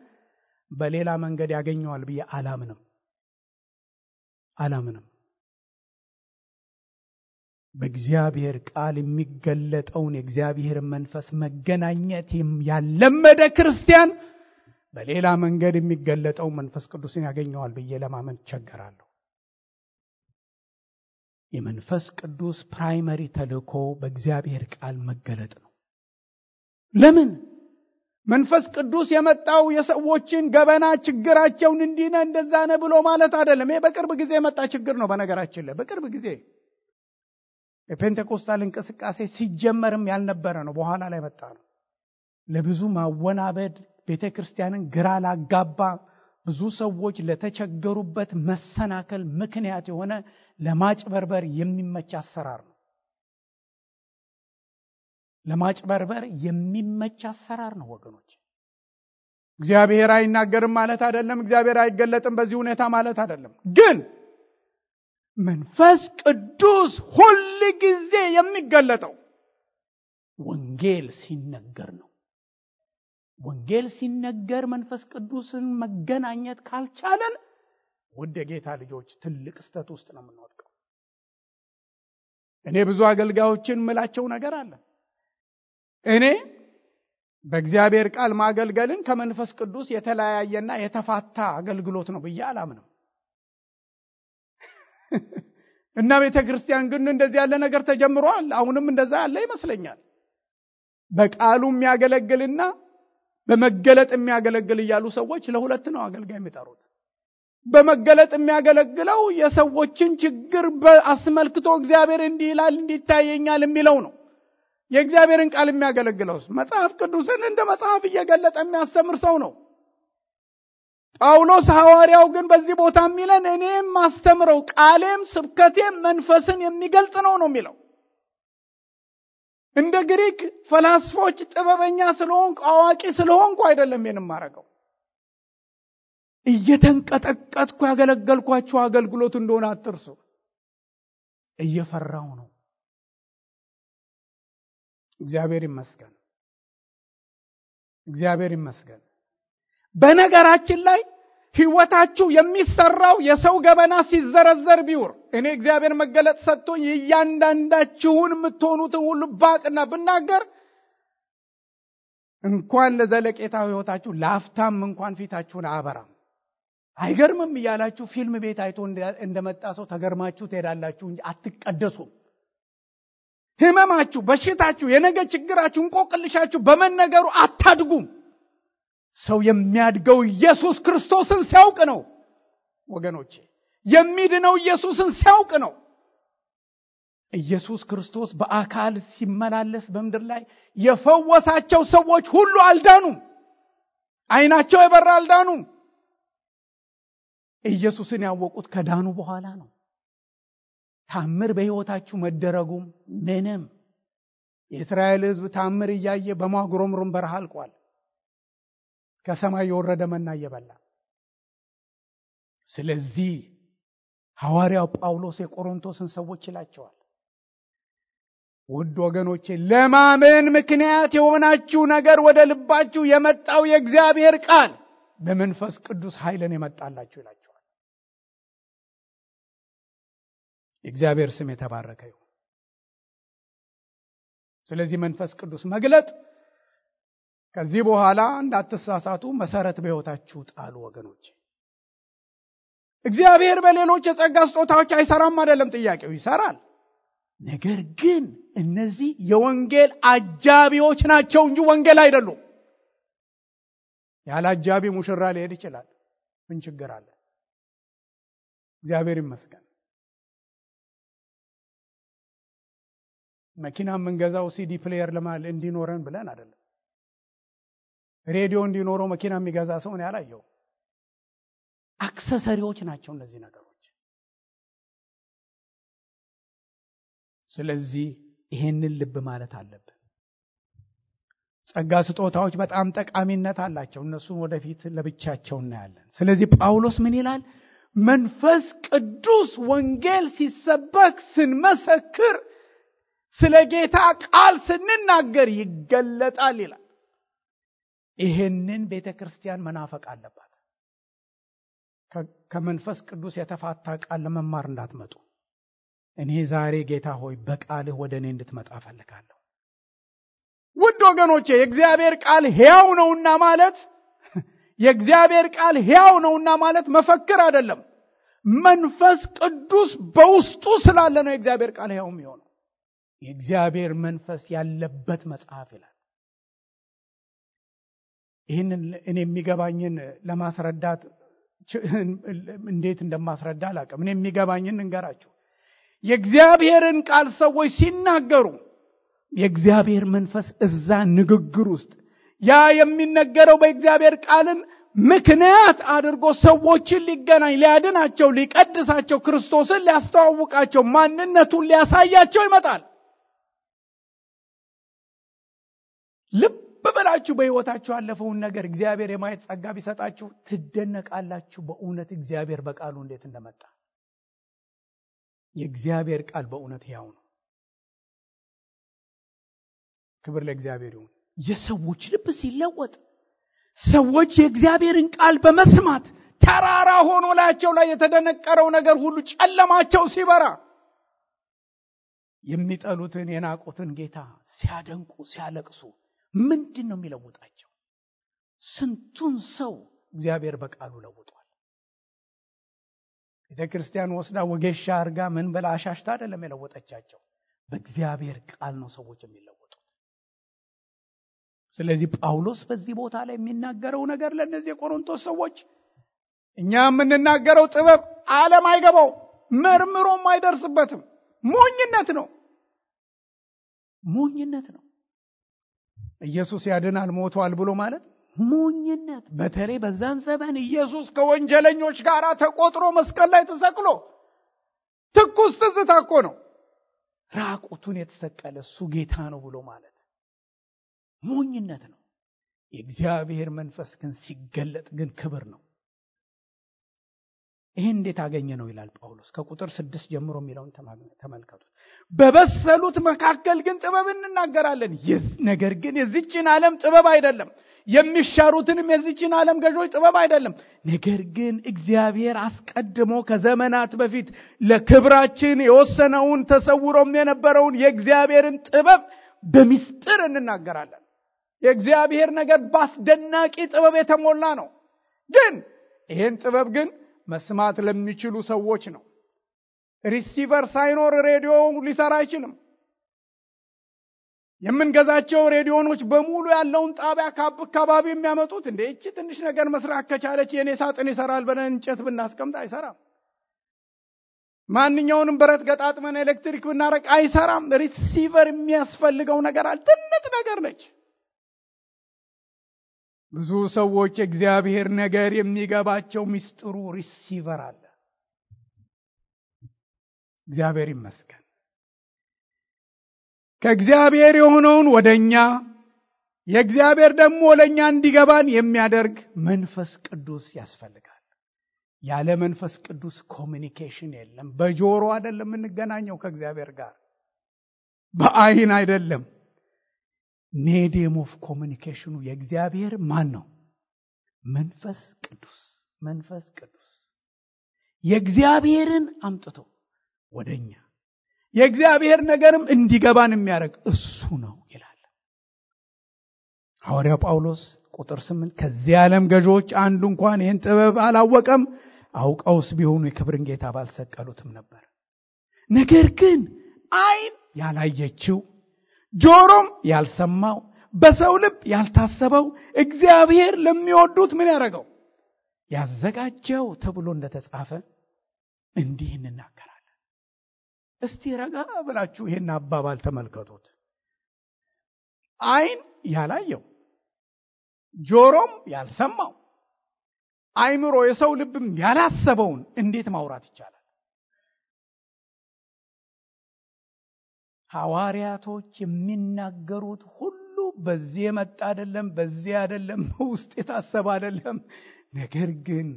በሌላ መንገድ ያገኘዋል ብዬ አላምንም በእግዚአብሔር ቃል የሚገለጠውን የእግዚአብሔር መንፈስ መገናኘት ያለመደ ክርስቲያን በሌላ መንገድ የሚገለጠው መንፈስ ቅዱስን ያገኘዋል ብዬ ለማመን ቸገራለሁ የመንፈስ ቅዱስ ፕራይመሪ ተልእኮ በእግዚአብሔር ቃል መገለጥ ነው ለምን መንፈስ ቅዱስ የመጣው የሰዎችን ገበና ችግራቸውን እንዲነ እንደዛነ ብሎ ማለት አይደለም ይሄ በቅርብ ጊዜ የመጣ ችግር ነው በነገራችን ላይ በቅርብ ጊዜ የፔንቴኮስታል እንቅስቃሴ ሲጀመርም ያልነበረ ነው በኋላ ላይ መጣ ነው ለብዙ ማወናበድ ቤተክርስቲያንን ግራ ላጋባ ብዙ ሰዎች ለተቸገሩበት መሰናከል ምክንያት የሆነ ለማጭበርበር የሚመች አሰራር ነው ወገኖች እግዚአብሔር አይናገርም ማለት አይደለም እግዚአብሔር አይገለጥም በዚህ ሁኔታ ማለት አይደለም ግን መንፈስ ቅዱስ ሁሉ ጊዜ የሚገለጠው ወንጌል ሲነገር ነው ወንጌል ሲነገር መንፈስ ቅዱስን መገናኘት ካልቻለን ወደ ጌታ ልጆች ትልቅ ስተት ውስጥ ነው የምንወድቀው እኔ ብዙ አገልጋዮችን ምላቸው ነገር አለ እኔ በእግዚአብሔር ቃል ማገልገልን ከመንፈስ ቅዱስ የተለያየና የተፋታ አገልግሎት ነው ብዬ አላምንም እና ቤተክርስቲያን ግን እንደዚህ ያለ ነገር ተጀምሯል አሁንም እንደዛ ያለ ይመስለኛል በቃሉ የሚያገለግልና በመገለጥ የሚያገለግል ይያሉ ሰዎች ለሁለት ነው አገልጋይ የሚጠሩት በመገለጥ የሚያገለግለው የሰዎችን ችግር በአስመልክቶ እግዚአብሔር እንዲህ ይላል እንዲታየኛል የሚለው ነው የእግዚአብሔርን ቃል የሚያገለግለው መጽሐፍ ቅዱስን እንደ መጽሐፍ እየገለጠ የሚያስተምር ሰው ነው ጳውሎስ ሐዋርያው ግን በዚህ ቦታ የሚለን እኔም ማስተምረው ቃሌም ስብከቴም መንፈስን የሚገልጥ ነው የሚለው እንደ ግሪክ ፈላስፎች ጥበበኛ ስለሆንኩ አዋቂ ስለሆንኩ አይደለም የማረገው እየተንቀጠቀጥኩ ያገለገልኳችሁ አገልግሎት እንደሆነ አትርሱ እየፈራው ነው እግዚአብሔር ይመስገን በነገራችን ላይ ህይወታችሁ የሚሰራው የሰው ገበና ሲዘረዘር ቢውር እኔ እግዚአብሔር መገለጥ ሰጥቶኝ እያንዳንዳችሁን የምትሆኑት ሁሉ ባቅና ብናገር እንኳን ለዘለቄታው ህይወታችሁ ላፍታም እንኳን ፊታችሁን አበራም አይገርምም እያላችሁ ፊልም ቤት አይቶ እንደመጣ ሰው ተገርማችሁ ትሄዳላችሁ እንጂ አትቀደሱም ህመማችሁ በሽታችሁ የነገ ችግራችሁ እንቆቅልሻችሁ በመነገሩ አታድጉም ሰው የሚያድገው ኢየሱስ ክርስቶስን ሲያውቅ ነው ወገኖቼ የሚድነው ኢየሱስን ሲያውቅ ነው ኢየሱስ ክርስቶስ በአካል ሲመላለስ በመድር ላይ የፈወሳቸው ሰዎች ሁሉ አልዳኑም አይናቸው የበራ አልዳኑም ኢየሱስን ያወቁት ከዳኑ በኋላ ነው ታምር በህይወታችሁ መደረጉም ምንም የእስራኤል ህዝብ ታምር እያየ በማጉረምረም በረሃ አልቋል ከሰማይ የወረደ መና እየበላ ስለዚህ ሐዋርያው ጳውሎስ የቆሮንቶስን ሰዎች ይላቸዋል ውድ ወገኖቼ ለማመን ምክንያት የሆናችሁ ነገር ወደ ልባችሁ የመጣው የእግዚአብሔር ቃል በመንፈስ ቅዱስ ኃይልን የመጣላችሁ ይላቸዋል እግዚአብሔር ስም የተባረከ ይሁን ስለዚህ መንፈስ ቅዱስ መግለጥ ከዚህ በኋላ እንዳትሳሳቱ መሰረት በህይወታችሁ ጣሉ ወገኖች እግዚአብሔር በሌሎች የጸጋ ስጦታዎች አይሰራም አይደለም ጥያቄው ይሰራል ነገር ግን እነዚህ የወንጌል አጃቢዎች ናቸው እንጂ ወንጌል አይደሉም ያለ አጃቢ ሙሽራ ሊሄድ ይችላል ምን ችግር አለ እግዚአብሔር ይመስገን መኪና የምንገዛው ሲዲ ፕሌየር ለማለት እንዲኖረን ብለን አይደለም። ሬዲዮ እንዲኖረው መኪና የሚገዛ ሰው ነው ያላየው። አክሰሰሪዎች ናቸው እነዚህ ነገሮች። ስለዚህ ይሄንን ልብ ማለት አለብን። ጸጋ ስጦታዎች በጣም ጠቃሚነት አላቸው። እነሱን ወደፊት ለብቻቸው እናያለን። ስለዚህ ጳውሎስ ምን ይላል? መንፈስ ቅዱስ ወንጌል ሲሰበክ ስንመሰክር ስለ ጌታ ቃል ስንናገር ይገለጣል ይላል። ይሄንን ቤተክርስቲያን መናፈቅ አለባት። ከመንፈስ ቅዱስ የተፋታ ቃል ለመማር እንዳትመጡ። እኔ ዛሬ ጌታ ሆይ በቃልህ ወደ እኔ እንድትመጣ ፈልጋለሁ። ውድ ወገኖቼ የእግዚአብሔር ቃል ሕያው ነውና ማለት የእግዚአብሔር ቃል ሕያው ነውና ማለት መፈክር አይደለም። መንፈስ ቅዱስ በውስጡ ስላለ ነው የእግዚአብሔር ቃል ሕያው የሚሆነው። የእግዚአብሔር መንፈስ ያለበት መጽሐፍ ይላል። ይህንን እኔ የሚገባኝን ለማስረዳት እንዴት እንደማስረዳ አላውቅም። እኔ የሚገባኝን እንገራችሁ። የእግዚአብሔርን ቃል ሰዎች ሲናገሩ የእግዚአብሔር መንፈስ እዛ ንግግር ውስጥ ያ የሚነገረው በእግዚአብሔር ቃልን ምክንያት አድርጎ ሰዎችን ሊገናኝ፣ ሊያድናቸው፣ ሊቀድሳቸው፣ ክርስቶስን ሊያስተዋውቃቸው፣ ማንነቱን ሊያሳያቸው ይመጣል። ልብ በላችሁ በሕይወታችሁ ያለፈውን ነገር እግዚአብሔር የማየት ጸጋ ቢሰጣችሁ ትደነቃላችሁ። በእውነት እግዚአብሔር በቃሉ እንዴት እንደመጣ። የእግዚአብሔር ቃል በእውነት ሕያው ነው። ክብር ለእግዚአብሔር ይሁን። የሰዎች ልብ ሲለወጥ፣ ሰዎች የእግዚአብሔርን ቃል በመስማት ተራራ ሆኖ ላያቸው ላይ የተደነቀረው ነገር ሁሉ ጨለማቸው ሲበራ፣ የሚጠሉትን የናቁትን ጌታ ሲያደንቁ ሲያለቅሱ ምንድን ነው የሚለውጣቸው? ስንቱን ሰው እግዚአብሔር በቃሉ ለውጧል። ቤተክርስቲያን ወስዳ ወጌሻ አርጋ ምን በላ አሻሽታ አይደለም የለወጠቻቸው። በእግዚአብሔር ቃል ነው ሰዎች የሚለወጡት። ስለዚህ ጳውሎስ በዚህ ቦታ ላይ የሚናገረው ነገር ለነዚህ የቆሮንቶስ ሰዎች እኛ የምንናገረው ጥበብ ዓለም አይገባው፣ መርምሮም አይደርስበትም። ሞኝነት ነው፣ ሞኝነት ነው። ኢየሱስ ያድናል ሞቷል ብሎ ማለት ሞኝነት። በተለይ በዛን ዘመን ኢየሱስ ከወንጀለኞች ጋር ተቆጥሮ መስቀል ላይ ተሰቅሎ ትኩስ ትዝታ እኮ ነው። ራቁቱን የተሰቀለ እሱ ጌታ ነው ብሎ ማለት ሞኝነት ነው። የእግዚአብሔር መንፈስ ግን ሲገለጥ ግን ክብር ነው። ይሄን እንዴት አገኘ ነው ይላል ጳውሎስ። ከቁጥር 6 ጀምሮ የሚለውን ተመልከቱት። በበሰሉት መካከል ግን ጥበብ እንናገራለን። ነገር ግን የዚችን ዓለም ጥበብ አይደለም፣ የሚሻሩትንም የዚችን ዓለም ገዦች ጥበብ አይደለም። ነገር ግን እግዚአብሔር አስቀድሞ ከዘመናት በፊት ለክብራችን የወሰነውን ተሰውሮም የነበረውን የእግዚአብሔርን ጥበብ በሚስጥር እንናገራለን። የእግዚአብሔር ነገር በአስደናቂ ጥበብ የተሞላ ነው። ግን ይህን ጥበብ ግን መስማት ለሚችሉ ሰዎች ነው። ሪሲቨር ሳይኖር ሬዲዮ ሊሰራ አይችልም። የምንገዛቸው ሬዲዮኖች በሙሉ ያለውን ጣቢያ ከአካባቢ የሚያመጡት እንደ እቺ ትንሽ ነገር መስራት ከቻለች የኔ ሳጥን ይሰራል ብለን እንጨት ብናስቀምጥ አይሰራም። ማንኛውንም ብረት ገጣጥመን ኤሌክትሪክ ብናረቅ አይሰራም። ሪሲቨር የሚያስፈልገው ነገር አለ። ትንጥ ነገር ነች። ብዙ ሰዎች እግዚአብሔር ነገር የሚገባቸው ሚስጥሩ ሪሲቨር አለ። እግዚአብሔር ይመስገን። ከእግዚአብሔር የሆነውን ወደኛ የእግዚአብሔር ደግሞ ለኛ እንዲገባን የሚያደርግ መንፈስ ቅዱስ ያስፈልጋል። ያለ መንፈስ ቅዱስ ኮሚኒኬሽን የለም። በጆሮ አይደለም የምንገናኘው ከእግዚአብሔር ጋር፣ በአይን አይደለም። ሜዲየም ኦፍ ኮሚኒኬሽኑ የእግዚአብሔር ማን ነው? መንፈስ ቅዱስ። መንፈስ ቅዱስ የእግዚአብሔርን አምጥቶ ወደኛ የእግዚአብሔር ነገርም እንዲገባን የሚያደርግ እሱ ነው ይላል ሐዋርያው ጳውሎስ። ቁጥር 8 ከዚህ ዓለም ገዦች አንዱ እንኳን ይህን ጥበብ አላወቀም፣ አውቀውስ ቢሆኑ የክብርን ጌታ ባልሰቀሉትም ነበር። ነገር ግን አይን ያላየችው ጆሮም ያልሰማው በሰው ልብ ያልታሰበው እግዚአብሔር ለሚወዱት ምን ያደረገው ያዘጋጀው ተብሎ እንደተጻፈ እንዲህ እንናገራለን። እስቲ ረጋ ብላችሁ ይሄን አባባል ተመልከቱት። ዓይን ያላየው፣ ጆሮም ያልሰማው፣ አይምሮ የሰው ልብም ያላሰበውን እንዴት ማውራት ይቻላል? ሐዋርያቶች የሚናገሩት ሁሉ በዚህ የመጣ አይደለም፣ በዚህ አይደለም፣ ውስጥ የታሰበ አይደለም። ነገር ግን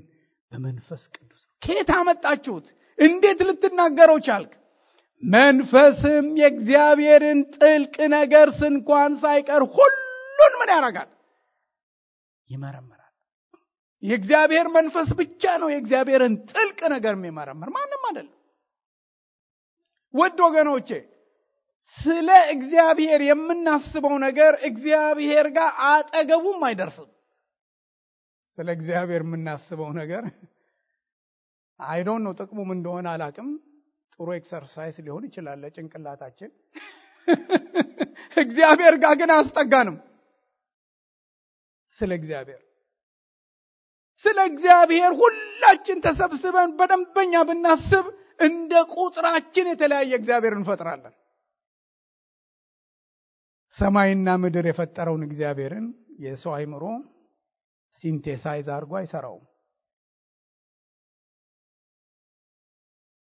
በመንፈስ ቅዱስ ነው። ከየት አመጣችሁት? እንዴት ልትናገረው ቻልክ? መንፈስም የእግዚአብሔርን ጥልቅ ነገር እንኳን ሳይቀር ሁሉን ምን ያደርጋል? ይመረምራል። የእግዚአብሔር መንፈስ ብቻ ነው የእግዚአብሔርን ጥልቅ ነገር የሚመረምር፣ ማንም አይደለም። ውድ ወገኖቼ ስለ እግዚአብሔር የምናስበው ነገር እግዚአብሔር ጋር አጠገቡም አይደርስም። ስለ እግዚአብሔር የምናስበው ነገር አይ ዶንት ኖ ጥቅሙም እንደሆነ አላቅም። ጥሩ ኤክሰርሳይዝ ሊሆን ይችላል ለጭንቅላታችን። እግዚአብሔር ጋር ግን አስጠጋንም። ስለ እግዚአብሔር ሁላችን ተሰብስበን በደንበኛ ብናስብ እንደ ቁጥራችን የተለያየ እግዚአብሔር እንፈጥራለን። ሰማይና ምድር የፈጠረውን እግዚአብሔርን የሰው አይምሮ ሲንቴሳይዝ አድርጎ አይሰራውም።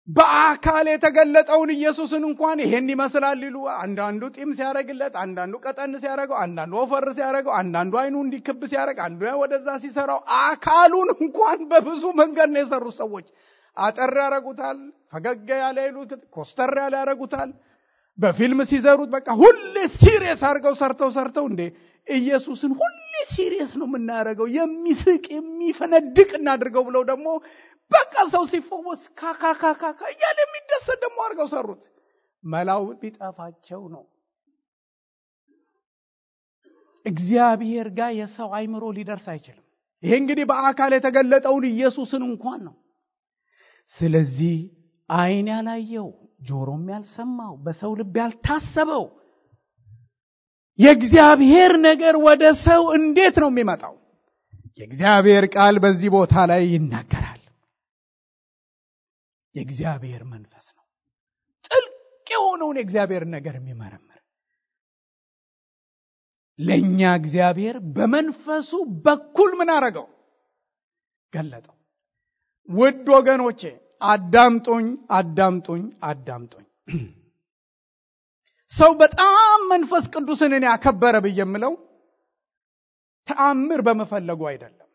በአካል የተገለጠውን ኢየሱስን እንኳን ይሄን ይመስላል ይሉ፣ አንዳንዱ ጢም ሲያረግለት፣ አንዳንዱ ቀጠን ሲያረገው፣ አንዳንዱ ወፈር ሲያረገው፣ አንዳንዱ አይኑ እንዲክብ ሲያረግ፣ አንዱ ወደዛ ሲሰራው፣ አካሉን እንኳን በብዙ መንገድ ነው የሰሩት ሰዎች። አጠር ያረጉታል፣ ፈገግ ያለ ይሉት፣ ኮስተር ያለ ያረጉታል። በፊልም ሲዘሩት በቃ ሁሌ ሲሪየስ አድርገው ሰርተው እንዴ ኢየሱስን ሁሌ ሲሪየስ ነው የምናደርገው፣ የሚስቅ የሚፈነድቅ እናድርገው ብለው ደግሞ በቃ ሰው ሲፈወስ ካካካካ እያለ የሚደሰት ደግሞ አድርገው ሰሩት። መላው ቢጠፋቸው ነው። እግዚአብሔር ጋር የሰው አይምሮ ሊደርስ አይችልም። ይሄ እንግዲህ በአካል የተገለጠውን ኢየሱስን እንኳን ነው። ስለዚህ ዓይን ያላየው፣ ጆሮም ያልሰማው፣ በሰው ልብ ያልታሰበው የእግዚአብሔር ነገር ወደ ሰው እንዴት ነው የሚመጣው? የእግዚአብሔር ቃል በዚህ ቦታ ላይ ይናገራል። የእግዚአብሔር መንፈስ ነው ጥልቅ የሆነውን የእግዚአብሔር ነገር የሚመረምር። ለኛ እግዚአብሔር በመንፈሱ በኩል ምን አረገው? ገለጠው። ውድ ወገኖቼ አዳምጡኝ። ሰው በጣም መንፈስ ቅዱስን እኔ ያከበረ ብየምለው ተአምር በመፈለጉ አይደለም።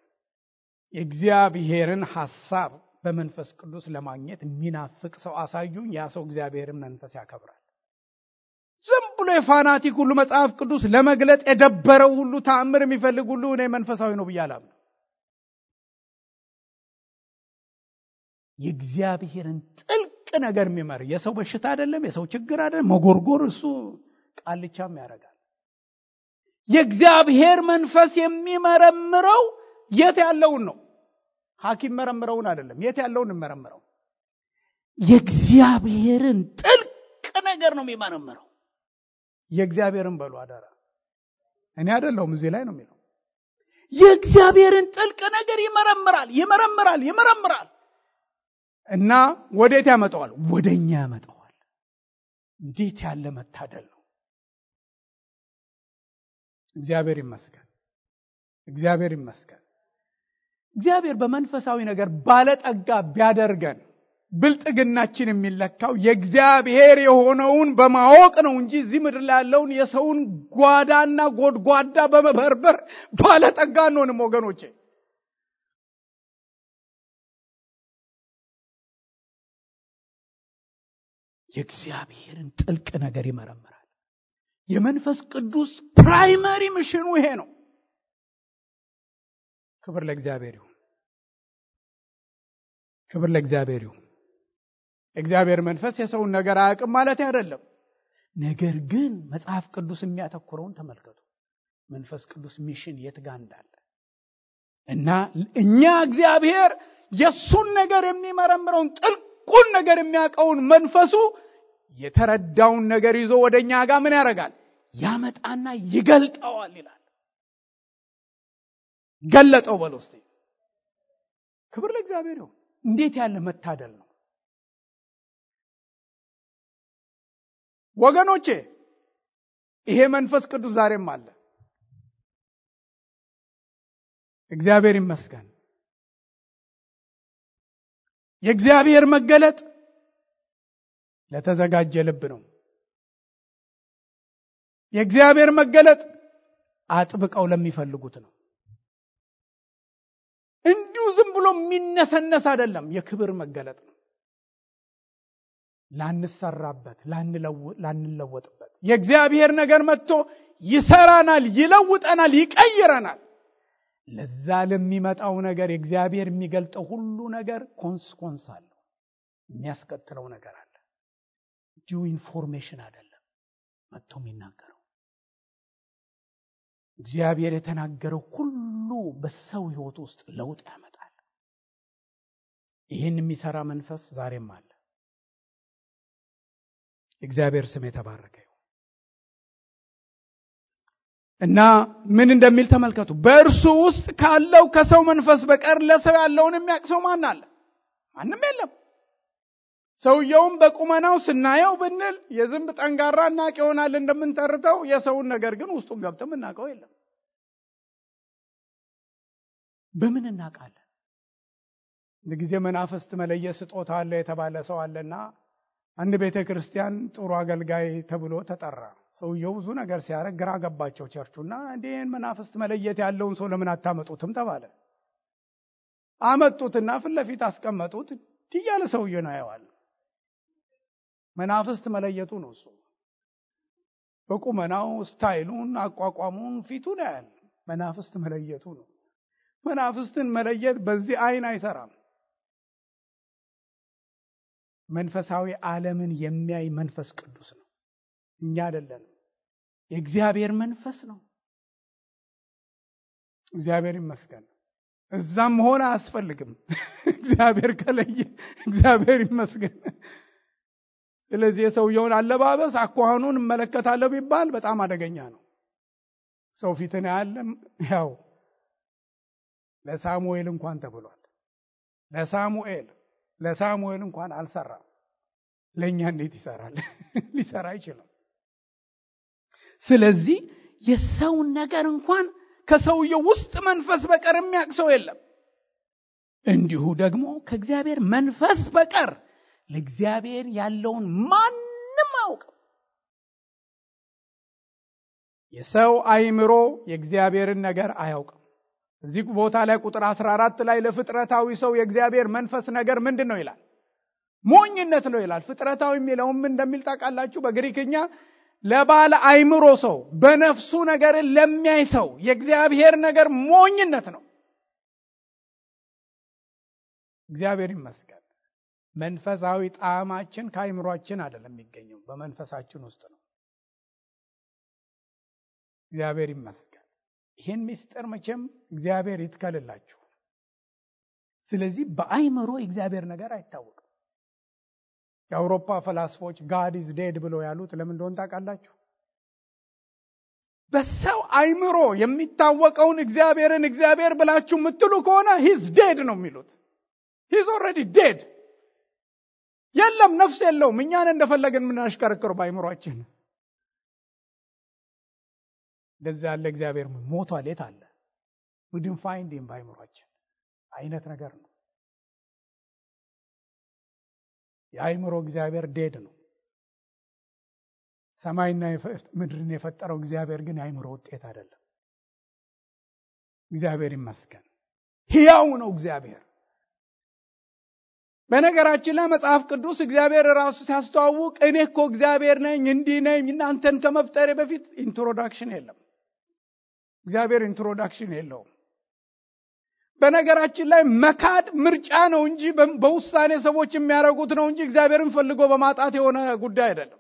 የእግዚአብሔርን ሐሳብ በመንፈስ ቅዱስ ለማግኘት የሚናፍቅ ሰው አሳዩኝ፣ ያ ሰው እግዚአብሔርን መንፈስ ያከብራል። ዝም ብሎ የፋናቲክ ሁሉ መጽሐፍ ቅዱስ ለመግለጥ የደበረው ሁሉ ተአምር የሚፈልግ ሁሉ እኔ መንፈሳዊ ነው ብያለሁ። የእግዚአብሔርን ጥልቅ ነገር የሚመር የሰው በሽታ አይደለም፣ የሰው ችግር አይደለም፣ መጎርጎር እሱ ቃልቻም ያደርጋል። የእግዚአብሔር መንፈስ የሚመረምረው የት ያለውን ነው። ሐኪም መረምረውን አይደለም፣ የት ያለውን መረምረው። የእግዚአብሔርን ጥልቅ ነገር ነው የሚመረምረው። የእግዚአብሔርን በሉ አዳራ እኔ አይደለሁም፣ እዚህ ላይ ነው የሚለው። የእግዚአብሔርን ጥልቅ ነገር ይመረምራል እና ወዴት ያመጣዋል? ወደኛ ያመጣዋል። እንዴት ያለ መታደል ነው! እግዚአብሔር ይመስገን። እግዚአብሔር በመንፈሳዊ ነገር ባለጠጋ ቢያደርገን ብልጥግናችን የሚለካው የእግዚአብሔር የሆነውን በማወቅ ነው እንጂ እዚህ ምድር ላይ ያለውን የሰውን ጓዳና ጎድጓዳ በመበርበር ባለጠጋ አንሆንም ወገኖቼ። የእግዚአብሔርን ጥልቅ ነገር ይመረምራል። የመንፈስ ቅዱስ ፕራይመሪ ሚሽኑ ይሄ ነው። ክብር ለእግዚአብሔር ይሁን። እግዚአብሔር መንፈስ የሰውን ነገር አያውቅም ማለት አይደለም። ነገር ግን መጽሐፍ ቅዱስ የሚያተኩረውን ተመልከቱ። መንፈስ ቅዱስ ሚሽን የት ጋር እንዳለ እና እኛ እግዚአብሔር የሱን ነገር የሚመረምረውን ጥልቁን ነገር የሚያውቀውን መንፈሱ የተረዳውን ነገር ይዞ ወደኛ ጋር ምን ያደርጋል? ያመጣና ይገልጠዋል ይላል። ገለጠው በሉ እስቲ። ክብር ለእግዚአብሔር ይሁን። እንዴት ያለ መታደል ነው! ወገኖቼ ይሄ መንፈስ ቅዱስ ዛሬም አለ። እግዚአብሔር ይመስገን። የእግዚአብሔር መገለጥ ለተዘጋጀ ልብ ነው። የእግዚአብሔር መገለጥ አጥብቀው ለሚፈልጉት ነው። እንዲሁ ዝም ብሎ የሚነሰነስ አይደለም። የክብር መገለጥ ነው። ላንሰራበት፣ ላንለወጥበት የእግዚአብሔር ነገር መጥቶ ይሰራናል፣ ይለውጠናል፣ ይቀይረናል። ለዛ ለሚመጣው ነገር የእግዚአብሔር የሚገልጠው ሁሉ ነገር ኮንስኮንስ አለው። የሚያስከትለው ነገር አለ። ዲዩ ኢንፎርሜሽን አይደለም መጥቶ የሚናገረው። እግዚአብሔር የተናገረው ሁሉ በሰው ሕይወት ውስጥ ለውጥ ያመጣል። ይህን የሚሰራ መንፈስ ዛሬም አለ። እግዚአብሔር ስም የተባረከ ይሁን። እና ምን እንደሚል ተመልከቱ። በእርሱ ውስጥ ካለው ከሰው መንፈስ በቀር ለሰው ያለውን የሚያውቅ ሰው ማን አለ? ማንም የለም። ሰውየውም በቁመናው ስናየው ብንል የዝንብ ጠንጋራ እናቅ ይሆናል እንደምንተርተው፣ የሰውን ነገር ግን ውስጡን ገብተን እናቀው የለም። በምን እናቃለን? ለጊዜ መናፍስት መለየት ስጦታ አለ የተባለ ሰው አለና አንድ ቤተክርስቲያን ጥሩ አገልጋይ ተብሎ ተጠራ። ሰውየው ብዙ ነገር ሲያረግ ግራ ገባቸው ቸርቹና እንዴን መናፍስት መለየት ያለውን ሰው ለምን አታመጡትም ተባለ። አመጡትና ፊት ለፊት አስቀመጡት። ትያለ ሰውየው ነው ያያዋል። መናፍስት መለየቱ ነው እሱ። በቁመናው ስታይሉን፣ አቋቋሙን፣ ፊቱን ያያል። መናፍስት መለየቱ ነው። መናፍስትን መለየት በዚህ አይን አይሰራም። መንፈሳዊ ዓለምን የሚያይ መንፈስ ቅዱስ ነው፣ እኛ አይደለንም። የእግዚአብሔር መንፈስ ነው። እግዚአብሔር ይመስገን። እዛም ሆነ አያስፈልግም። እግዚአብሔር ከለየ እግዚአብሔር ይመስገን። ስለዚህ የሰውየውን አለባበስ አኳኋኑን እመለከታለሁ ቢባል በጣም አደገኛ ነው። ሰው ፊትን ያለም ያው ለሳሙኤል እንኳን ተብሏል። ለሳሙኤል እንኳን አልሰራም። ለኛ እንዴት ይሰራል? ሊሰራ አይችልም። ስለዚህ የሰው ነገር እንኳን ከሰውየው ውስጥ መንፈስ በቀር የሚያውቅ ሰው የለም። እንዲሁ ደግሞ ከእግዚአብሔር መንፈስ በቀር ለእግዚአብሔር ያለውን ማንም አያውቅም። የሰው አእምሮ የእግዚአብሔርን ነገር አያውቅም። እዚህ ቦታ ላይ ቁጥር 14 ላይ ለፍጥረታዊ ሰው የእግዚአብሔር መንፈስ ነገር ምንድነው ይላል? ሞኝነት ነው ይላል። ፍጥረታዊ የሚለውም እንደሚል ታውቃላችሁ። በግሪክኛ ለባለ አእምሮ ሰው፣ በነፍሱ ነገርን ለሚያይ ሰው የእግዚአብሔር ነገር ሞኝነት ነው። እግዚአብሔር ይመስገን። መንፈሳዊ ጣዕማችን ከአእምሮአችን አይደለም የሚገኘው፣ በመንፈሳችን ውስጥ ነው። እግዚአብሔር ይመስገን። ይሄን ምስጢር መቼም እግዚአብሔር ይትከልላችሁ። ስለዚህ በአእምሮ እግዚአብሔር ነገር አይታወቅም። የአውሮፓ ፈላስፎች ጋድ ኢዝ ዴድ ብለው ያሉት ለምን እንደሆነ ታውቃላችሁ? በሰው አእምሮ የሚታወቀውን እግዚአብሔርን እግዚአብሔር ብላችሁ የምትሉ ከሆነ ሂዝ ዴድ ነው የሚሉት። ሂዝ ኦልሬዲ ዴድ። የለም፣ ነፍስ የለውም። እኛን እንደፈለገን የምናሽከረክረው በአእምሮአችን። እንደዚህ ያለ እግዚአብሔር ሞቷል የት አለ? we didn't find him በአእምሮአችን አይነት ነገር ነው። የአእምሮ እግዚአብሔር ዴድ ነው። ሰማይና ምድርን የፈጠረው እግዚአብሔር ግን የአእምሮ ውጤት አይደለም። እግዚአብሔር ይመስገን። ሕያው ነው እግዚአብሔር። በነገራችን ላይ መጽሐፍ ቅዱስ እግዚአብሔር ራሱ ሲያስተዋውቅ እኔ እኮ እግዚአብሔር ነኝ እንዲህ ነኝ እናንተን ከመፍጠሬ በፊት ኢንትሮዳክሽን የለም። እግዚአብሔር ኢንትሮዳክሽን የለውም። በነገራችን ላይ መካድ ምርጫ ነው እንጂ በውሳኔ ሰዎች የሚያደርጉት ነው እንጂ እግዚአብሔርን ፈልጎ በማጣት የሆነ ጉዳይ አይደለም።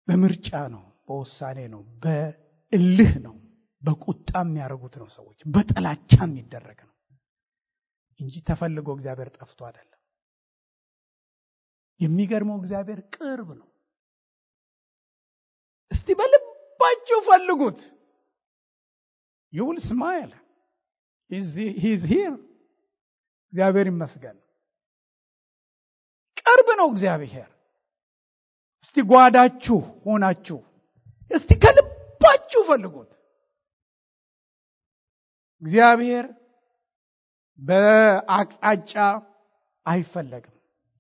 በምርጫ ነው፣ በውሳኔ ነው፣ በእልህ ነው፣ በቁጣ የሚያደርጉት ነው ሰዎች፣ በጥላቻ የሚደረግ ነው እንጂ ተፈልጎ እግዚአብሔር ጠፍቶ አይደለም። የሚገርመው እግዚአብሔር ቅርብ ነው። እስቲ በልባችሁ ፈልጉት። you will smile. He's here. እግዚአብሔር ይመስገን። ቅርብ ነው እግዚአብሔር። እስቲ ጓዳችሁ ሆናችሁ እስቲ ከልባችሁ ፈልጉት። እግዚአብሔር በአቅጣጫ አይፈለግም።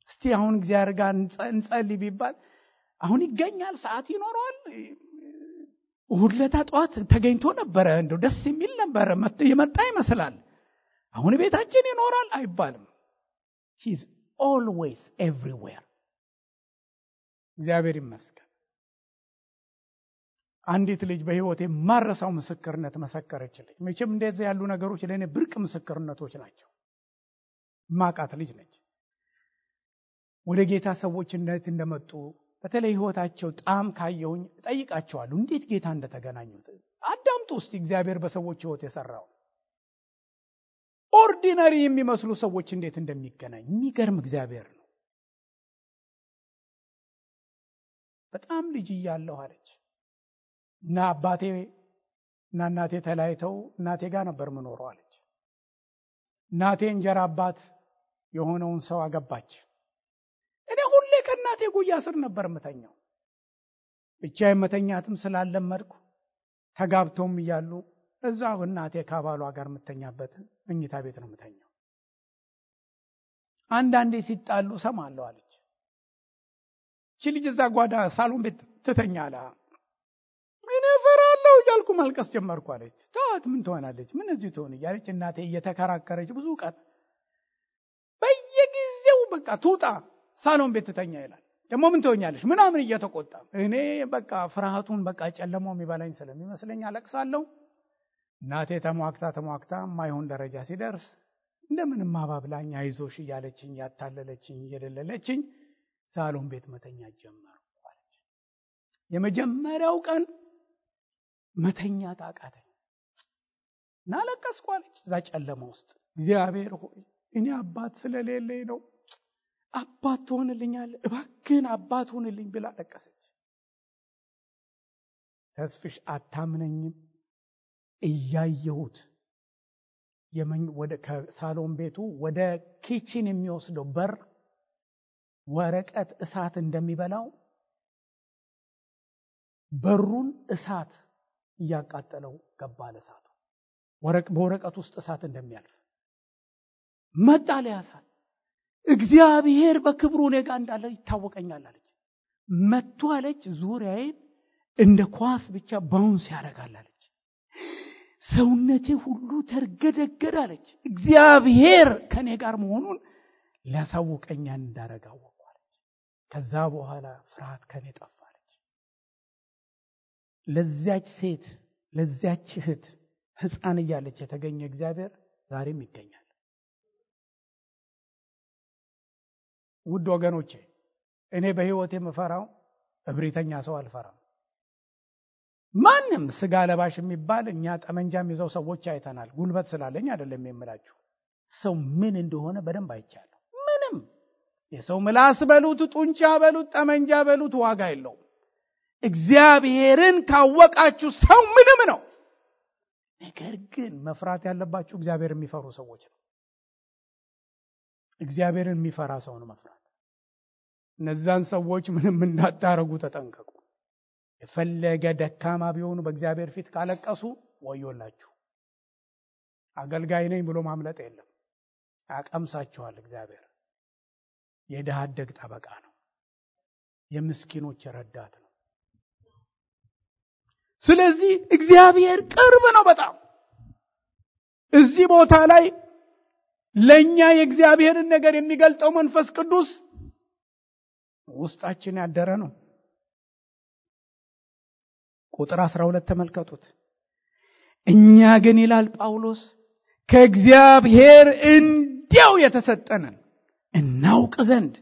እስቲ አሁን እግዚአብሔር ጋር እንጸልይ ቢባል አሁን ይገኛል? ሰዓት ይኖረዋል? እሑድ ዕለት ጠዋት ተገኝቶ ነበረ፣ እንደው ደስ የሚል ነበረ፣ የመጣ ይመስላል። አሁን ቤታችን ይኖራል አይባልም። he is always everywhere። እግዚአብሔር ይመስገን። አንዲት ልጅ በህይወቴ ማረሳው ምስክርነት መሰከረችልኝ። መቼም እንደዚህ ያሉ ነገሮች ለኔ ብርቅ ምስክርነቶች ናቸው። ማቃት ልጅ ነች። ወደ ጌታ ሰዎች እንዴት እንደመጡ በተለይ ህይወታቸው ጣም ካየውኝ ጠይቃቸዋለሁ፣ እንዴት ጌታ እንደተገናኙት አዳምጡ እስቲ። እግዚአብሔር በሰዎች ህይወት የሰራው ኦርዲናሪ የሚመስሉ ሰዎች እንዴት እንደሚገናኝ የሚገርም እግዚአብሔር ነው። በጣም ልጅ እያለሁ አለች እና አባቴ እና እናቴ ተለያይተው እናቴ ጋር ነበር የምኖረው አለች። እናቴ እንጀራ አባት የሆነውን ሰው አገባች። እኔ ሁሌ ከእናቴ ጉያ ስር ነበር የምተኛው። ብቻዬን መተኛትም ስላለመድኩ ተጋብተውም እያሉ እዛው እናቴ ከባሏ ጋር የምተኛበት መኝታ ቤት ነው የምተኛው። አንዳንዴ ሲጣሉ ሰማለሁ አለች። እቺ ልጅ እዛ ጓዳ ሳሎን ቤት ትተኛላ። እኔ ፈራለሁ እያልኩ ማልቀስ ጀመርኩ አለች። ታት ምን ትሆናለች? ምን እዚህ ትሆን እያለች እናቴ እየተከራከረች ብዙ ቀን በየጊዜው በቃ ትውጣ ሳሎን ቤት ትተኛ ይላል። ደግሞ ምን ትሆኛለሽ ምናምን እየተቆጣ እኔ በቃ ፍርሃቱን በቃ ጨለማው የሚበላኝ ስለሚመስለኝ አለቅሳለሁ። እናቴ ተሟክታ ማይሆን ደረጃ ሲደርስ እንደምንም ማባብላኝ አይዞሽ እያለችኝ ያታለለችኝ እየደለለችኝ ሳሎን ቤት መተኛ ጀመርኩ አለች። የመጀመሪያው ቀን መተኛ ታቃተኝ እና ለቀስኩ አለች። እዛ ጨለማ ውስጥ እግዚአብሔር ሆይ እኔ አባት ስለሌለኝ ነው፣ አባት ትሆንልኛለህ እባክህን አባት ሆንልኝ ብላ ለቀሰች። ተስፍሽ አታምነኝም? እያየሁት ወደ ከሳሎን ቤቱ ወደ ኪችን የሚወስደው በር ወረቀት እሳት እንደሚበላው በሩን እሳት እያቃጠለው ገባ። ለእሳቱ በወረቀት ውስጥ እሳት እንደሚያልፍ መጣ። ለያሳት እግዚአብሔር በክብሩ እኔ ጋር እንዳለ ይታወቀኛል አለች። መጥቶ አለች ዙሪያዬን እንደ ኳስ ብቻ ባውንስ ያደርጋል አለች። ሰውነቴ ሁሉ ተርገደገደ አለች። እግዚአብሔር ከኔ ጋር መሆኑን ሊያሳውቀኝ እንዳረጋው አለች። ከዛ በኋላ ፍርሃት ከኔ ጠፋ አለች። ለዚያች ሴት ለዚያች እህት ሕፃን እያለች የተገኘ እግዚአብሔር ዛሬም ይገኛል። ውድ ወገኖቼ እኔ በህይወቴ የምፈራው እብሪተኛ ሰው አልፈራም። ማንም ስጋ ለባሽ የሚባል እኛ ጠመንጃም ይዘው ሰዎች አይተናል። ጉልበት ስላለኝ አይደለም የምላችሁ፣ ሰው ምን እንደሆነ በደንብ አይቻለሁ። ምንም የሰው ምላስ በሉት ጡንቻ በሉት ጠመንጃ በሉት ዋጋ የለውም። እግዚአብሔርን ካወቃችሁ ሰው ምንም ነው። ነገር ግን መፍራት ያለባችሁ እግዚአብሔርን የሚፈሩ ሰዎች ነው። እግዚአብሔርን የሚፈራ ሰው ነው መፍራት። እነዛን ሰዎች ምንም እንዳታረጉ ተጠንቀቁ። የፈለገ ደካማ ቢሆኑ በእግዚአብሔር ፊት ካለቀሱ ወዮላችሁ። አገልጋይ ነኝ ብሎ ማምለጥ የለም። ያቀምሳችኋል። እግዚአብሔር የድሃ አደግ ጠበቃ ነው። የምስኪኖች ረዳት ነው። ስለዚህ እግዚአብሔር ቅርብ ነው በጣም። እዚህ ቦታ ላይ ለኛ የእግዚአብሔርን ነገር የሚገልጠው መንፈስ ቅዱስ ውስጣችን ያደረ ነው። ቁጥር 12 ተመልከቱት። እኛ ግን ይላል ጳውሎስ ከእግዚአብሔር እንዲያው የተሰጠንን እናውቅ ዘንድ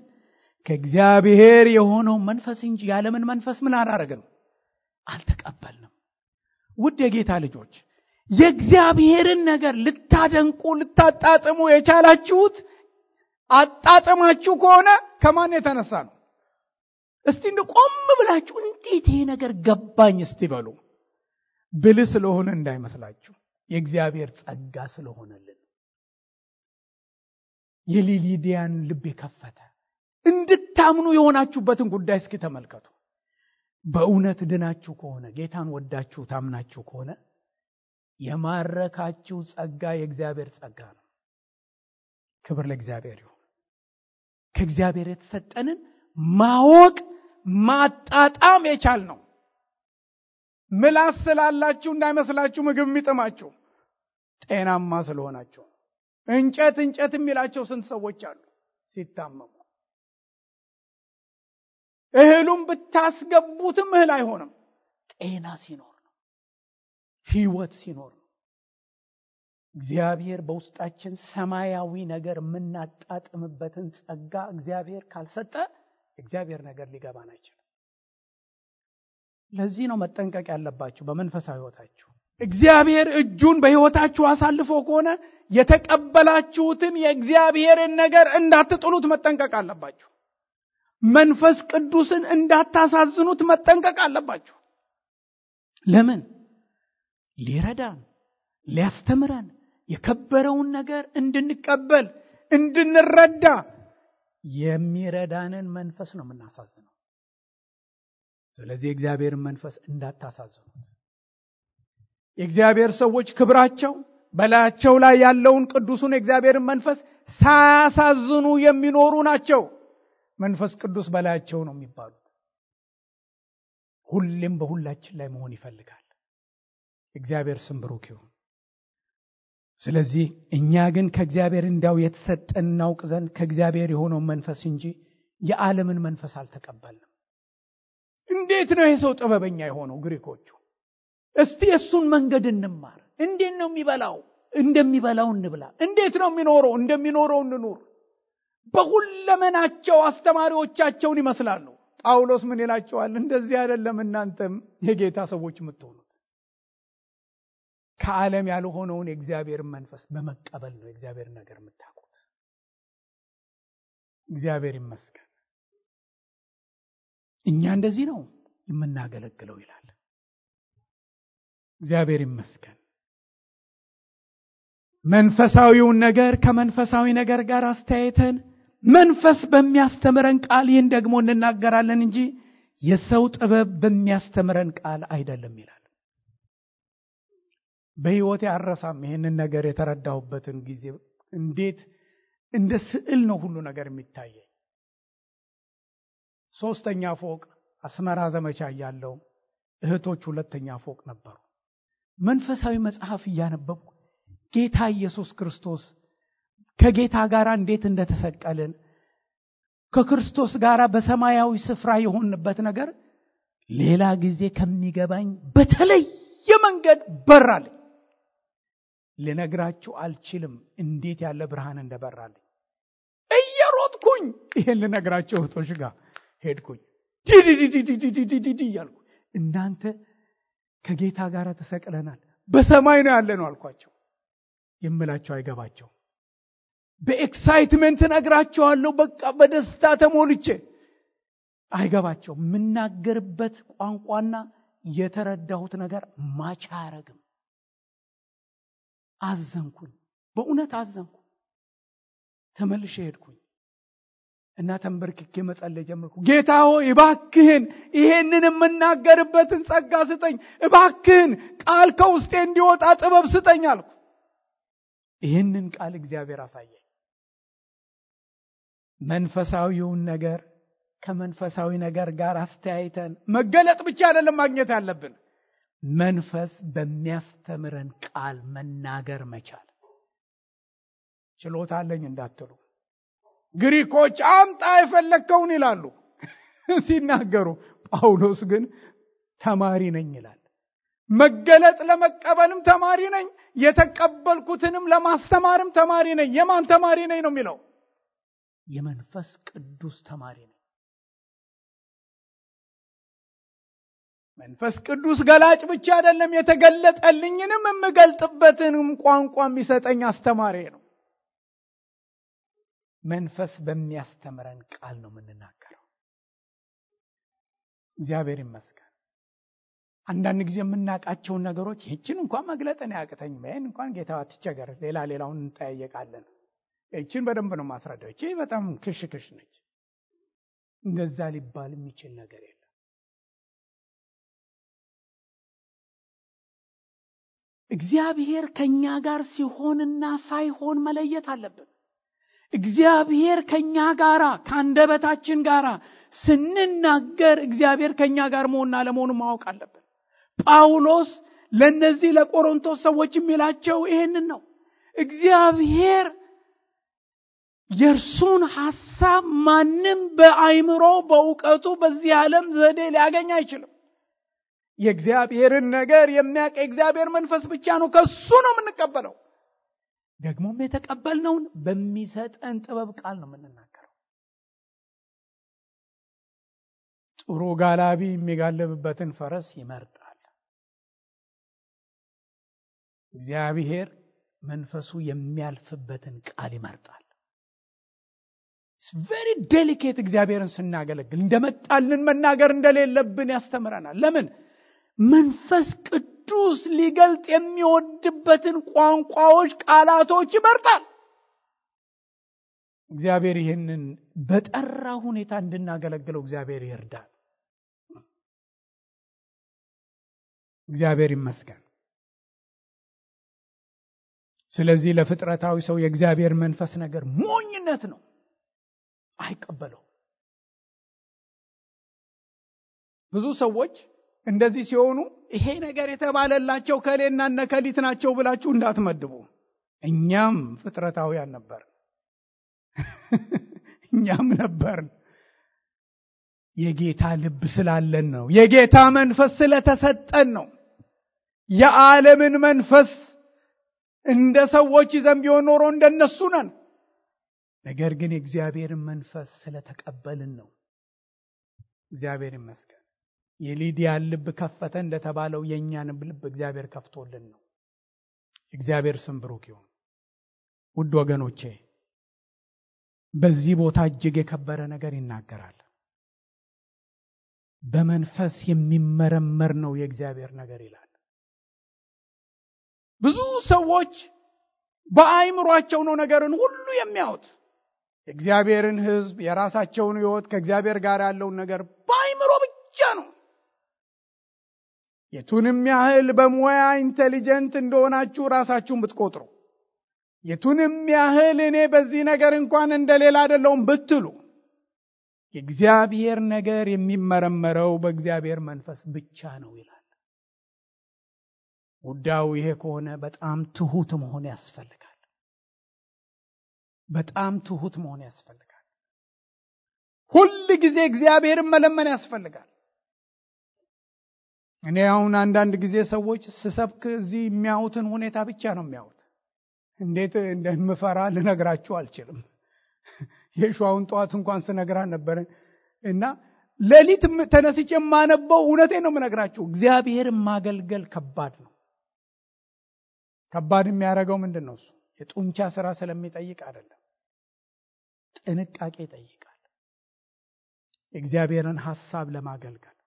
ከእግዚአብሔር የሆነው መንፈስ እንጂ ያለምን መንፈስ ምን አላረግንም አልተቀበልንም። ውድ የጌታ ልጆች የእግዚአብሔርን ነገር ልታደንቁ ልታጣጥሙ የቻላችሁት አጣጥማችሁ ከሆነ ከማን የተነሳ ነው? እስቲ ቆም ብላችሁ እንዴት ይሄ ነገር ገባኝ እስቲ በሉ። ብልህ ስለሆነ እንዳይመስላችሁ፣ የእግዚአብሔር ጸጋ ስለሆነልን። የሊዲያን ልብ የከፈተ እንድታምኑ የሆናችሁበትን ጉዳይ እስኪ ተመልከቱ። በእውነት ድናችሁ ከሆነ ጌታን ወዳችሁ ታምናችሁ ከሆነ የማረካችሁ ጸጋ የእግዚአብሔር ጸጋ ነው። ክብር ለእግዚአብሔር ይሁን። ከእግዚአብሔር የተሰጠንን ማወቅ ማጣጣም የቻል ነው። ምላስ ስላላችሁ እንዳይመስላችሁ ምግብ የሚጥማችሁ ጤናማ ስለሆናችሁ። እንጨት የሚላቸው ስንት ሰዎች አሉ ሲታመሙ። እህሉም ብታስገቡትም እህል አይሆንም። ጤና ሲኖር ነው፣ ህይወት ሲኖር ነው። እግዚአብሔር በውስጣችን ሰማያዊ ነገር የምናጣጥምበትን ጸጋ እግዚአብሔር ካልሰጠ እግዚአብሔር ነገር ሊገባን አይችልም። ለዚህ ነው መጠንቀቅ ያለባችሁ በመንፈሳዊ ህይወታችሁ። እግዚአብሔር እጁን በህይወታችሁ አሳልፎ ከሆነ የተቀበላችሁትን የእግዚአብሔርን ነገር እንዳትጥሉት መጠንቀቅ አለባችሁ። መንፈስ ቅዱስን እንዳታሳዝኑት መጠንቀቅ አለባችሁ። ለምን? ሊረዳን ሊያስተምረን የከበረውን ነገር እንድንቀበል እንድንረዳ የሚረዳንን መንፈስ ነው የምናሳዝነው። ስለዚህ የእግዚአብሔርን መንፈስ እንዳታሳዝኑት። የእግዚአብሔር ሰዎች ክብራቸው በላያቸው ላይ ያለውን ቅዱሱን የእግዚአብሔርን መንፈስ ሳያሳዝኑ የሚኖሩ ናቸው። መንፈስ ቅዱስ በላያቸው ነው የሚባሉት። ሁሌም በሁላችን ላይ መሆን ይፈልጋል። እግዚአብሔር ስም ብሩክ ይሁን። ስለዚህ እኛ ግን ከእግዚአብሔር እንዳው የተሰጠን እናውቅ ዘንድ ከእግዚአብሔር የሆነውን መንፈስ እንጂ የዓለምን መንፈስ አልተቀበልንም። እንዴት ነው ይሄ ሰው ጥበበኛ የሆነው? ግሪኮቹ እስቲ እሱን መንገድ እንማር። እንዴት ነው የሚበላው? እንደሚበላው እንብላ። እንዴት ነው የሚኖረው? እንደሚኖረው እንኑር። በሁለመናቸው አስተማሪዎቻቸውን ይመስላሉ። ጳውሎስ ምን ይላቸዋል? እንደዚህ አይደለም እናንተም የጌታ ሰዎች የምትሆኑት። ከዓለም ያልሆነውን የእግዚአብሔር መንፈስ በመቀበል ነው የእግዚአብሔር ነገር የምታውቁት። እግዚአብሔር ይመስገን። እኛ እንደዚህ ነው የምናገለግለው ይላል። እግዚአብሔር ይመስገን። መንፈሳዊውን ነገር ከመንፈሳዊ ነገር ጋር አስተያየተን መንፈስ በሚያስተምረን ቃል ይህን ደግሞ እንናገራለን እንጂ የሰው ጥበብ በሚያስተምረን ቃል አይደለም ይላል። በሕይወቴ አረሳም ይህንን ነገር የተረዳሁበትን ጊዜ። እንዴት እንደ ስዕል ነው ሁሉ ነገር የሚታየኝ። 3ኛ ፎቅ አስመራ ዘመቻ ያለው እህቶች 2ኛ ፎቅ ነበሩ። መንፈሳዊ መጽሐፍ እያነበብኩ ጌታ ኢየሱስ ክርስቶስ ከጌታ ጋር እንዴት እንደተሰቀልን ከክርስቶስ ጋር በሰማያዊ ስፍራ የሆንበት ነገር ሌላ ጊዜ ከሚገባኝ በተለየ መንገድ በራልኝ። ልነግራችሁ አልችልም እንዴት ያለ ብርሃን እንደበራልኝ። እየሮጥኩኝ ይሄን ልነግራችሁ እህቶች ጋር ሄድኩኝ። ዲዲዲዲዲዲዲዲ እያልኩ እናንተ ከጌታ ጋር ተሰቅለናል፣ በሰማይ ነው ያለነው አልኳቸው። የምላቸው አይገባቸው። በኤክሳይትመንት ነግራቸዋለሁ። በቃ በደስታ ተሞልቼ አይገባቸው። የምናገርበት ቋንቋና የተረዳሁት ነገር ማች አያረግም። አዘንኩኝ፣ በእውነት አዘንኩ። ተመልሼ ሄድኩኝ እና ተንበርክኬ መጸለይ ጀመርኩ። ጌታ ሆይ እባክህን ይሄንን የምናገርበትን ጸጋ ስጠኝ፣ እባክህን ቃል ከውስጤ እንዲወጣ ጥበብ ስጠኝ አልኩ። ይህንን ቃል እግዚአብሔር አሳየኝ። መንፈሳዊውን ነገር ከመንፈሳዊ ነገር ጋር አስተያይተን መገለጥ ብቻ አይደለም ማግኘት ያለብን፣ መንፈስ በሚያስተምረን ቃል መናገር መቻል። ችሎታ አለኝ እንዳትሉ፣ ግሪኮች አምጣ የፈለከውን ይላሉ ሲናገሩ፣ ጳውሎስ ግን ተማሪ ነኝ ይላል። መገለጥ ለመቀበልም ተማሪ ነኝ፣ የተቀበልኩትንም ለማስተማርም ተማሪ ነኝ። የማን ተማሪ ነኝ ነው የሚለው? የመንፈስ ቅዱስ ተማሪ ነኝ። መንፈስ ቅዱስ ገላጭ ብቻ አይደለም፣ የተገለጠልኝንም የምገልጥበትንም ቋንቋ የሚሰጠኝ አስተማሪ ነው። መንፈስ በሚያስተምረን ቃል ነው የምንናገረው። እግዚአብሔር ይመስገን። አንዳንድ ጊዜ የምናውቃቸውን ነገሮች ይህችን እንኳን መግለጥን ያቅተኝም፣ ይህን እንኳን ጌታ አትቸገር፣ ሌላውን እንጠያየቃለን። ይህችን በደንብ ነው ማስረዳው፣ ይህች በጣም ክሽ ነች። እንደዛ ሊባል የሚችል ነገር የለም። እግዚአብሔር ከኛ ጋር ሲሆንና ሳይሆን መለየት አለብን። እግዚአብሔር ከኛ ጋር ከአንደበታችን ጋር ስንናገር እግዚአብሔር ከኛ ጋር መሆንና ለመሆኑ ማወቅ አለብን። ጳውሎስ ለነዚህ ለቆሮንቶስ ሰዎች የሚላቸው ይሄንን ነው። እግዚአብሔር የእርሱን ሐሳብ ማንም በአይምሮ በእውቀቱ በዚህ ዓለም ዘዴ ሊያገኝ አይችልም። የእግዚአብሔርን ነገር የሚያውቅ የእግዚአብሔር መንፈስ ብቻ ነው። ከሱ ነው የምንቀበለው። ደግሞም የተቀበልነውን በሚሰጠን ጥበብ ቃል ነው የምንናገረው። ጥሩ ጋላቢ የሚጋለብበትን ፈረስ ይመርጣል። እግዚአብሔር መንፈሱ የሚያልፍበትን ቃል ይመርጣል። It's very delicate። እግዚአብሔርን ስናገለግል እንደመጣልን መናገር እንደሌለብን ያስተምረናል። ለምን? መንፈስ ቅዱስ ሊገልጥ የሚወድበትን ቋንቋዎች፣ ቃላቶች ይመርጣል። እግዚአብሔር ይህንን በጠራ ሁኔታ እንድናገለግለው እግዚአብሔር ይርዳል። እግዚአብሔር ይመስገን። ስለዚህ ለፍጥረታዊ ሰው የእግዚአብሔር መንፈስ ነገር ሞኝነት ነው፣ አይቀበለው። ብዙ ሰዎች እንደዚህ ሲሆኑ ይሄ ነገር የተባለላቸው ከሌና ነከሊት ናቸው ብላችሁ እንዳትመድቡ። እኛም ፍጥረታውያን ነበር፣ እኛም ነበርን። የጌታ ልብ ስላለን ነው፣ የጌታ መንፈስ ስለተሰጠን ነው። የዓለምን መንፈስ እንደ ሰዎች ይዘን ቢሆን ኖሮ እንደነሱ ነን። ነገር ግን የእግዚአብሔርን መንፈስ ስለተቀበልን ነው። እግዚአብሔር ይመስገን። የሊዲያን ልብ ከፈተ እንደተባለው የእኛንም ልብ እግዚአብሔር ከፍቶልን ነው። እግዚአብሔር ስም ብሩክ ይሁን። ውድ ወገኖቼ በዚህ ቦታ እጅግ የከበረ ነገር ይናገራል። በመንፈስ የሚመረመር ነው የእግዚአብሔር ነገር ይላል። ብዙ ሰዎች በአይምሯቸው ነው ነገርን ሁሉ የሚያዩት። የእግዚአብሔርን ሕዝብ የራሳቸውን ሕይወት ከእግዚአብሔር ጋር ያለውን ነገር በአይምሮ ብቻ ነው። የቱንም ያህል በሙያ ኢንቴሊጀንት እንደሆናችሁ ራሳችሁን ብትቆጥሩ፣ የቱንም ያህል እኔ በዚህ ነገር እንኳን እንደሌላ አይደለሁም ብትሉ፣ የእግዚአብሔር ነገር የሚመረመረው በእግዚአብሔር መንፈስ ብቻ ነው ይላል። ጉዳዩ ይሄ ከሆነ በጣም ትሁት መሆን ያስፈልጋል። በጣም ትሁት መሆን ያስፈልጋል። ሁል ጊዜ እግዚአብሔርን መለመን ያስፈልጋል። እኔ አሁን አንዳንድ ጊዜ ሰዎች ስሰብክ እዚህ የሚያዩትን ሁኔታ ብቻ ነው የሚያዩት። እንዴት እንደምፈራ ልነግራችሁ አልችልም። የሸዋውን ጠዋት እንኳን ስነግራ ነበር እና ሌሊት ተነስቼ የማነበው እውነቴን ነው የምነግራችሁ። እግዚአብሔርን ማገልገል ከባድ ነው። ከባድ የሚያደርገው ምንድን ነው? እሱ የጡንቻ ስራ ስለሚጠይቅ አይደለም፣ ጥንቃቄ ይጠይቃል። የእግዚአብሔርን ሐሳብ ለማገልገል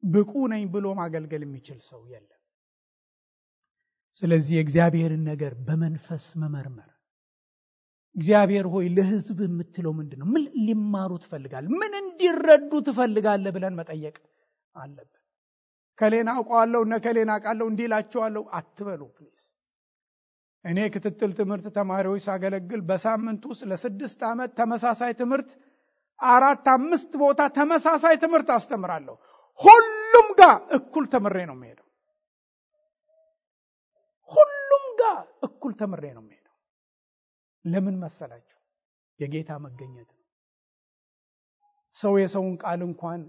ብቁ ነኝ ብሎ ማገልገል የሚችል ሰው የለም። ስለዚህ የእግዚአብሔርን ነገር በመንፈስ መመርመር። እግዚአብሔር ሆይ ለሕዝብ የምትለው ምንድን ነው? ምን ሊማሩ ትፈልጋለህ? ምን እንዲረዱ ትፈልጋለህ ብለን መጠየቅ አለብን። ከሌና አውቀዋለሁ እና ከሌና አውቃለሁ እንዲላቸዋለሁ አትበሉ ፕሊዝ። እኔ ክትትል ትምህርት ተማሪዎች ሳገለግል በሳምንት ውስጥ ለ6 ዓመት ተመሳሳይ ትምህርት 4-5 ቦታ ተመሳሳይ ትምህርት አስተምራለሁ። ሁሉም ጋር እኩል ተምሬ ነው የምሄደው። ሁሉም ጋር እኩል ተምሬ ነው የምሄደው። ለምን መሰላችሁ? የጌታ መገኘት ነው። ሰው የሰውን ቃል እንኳን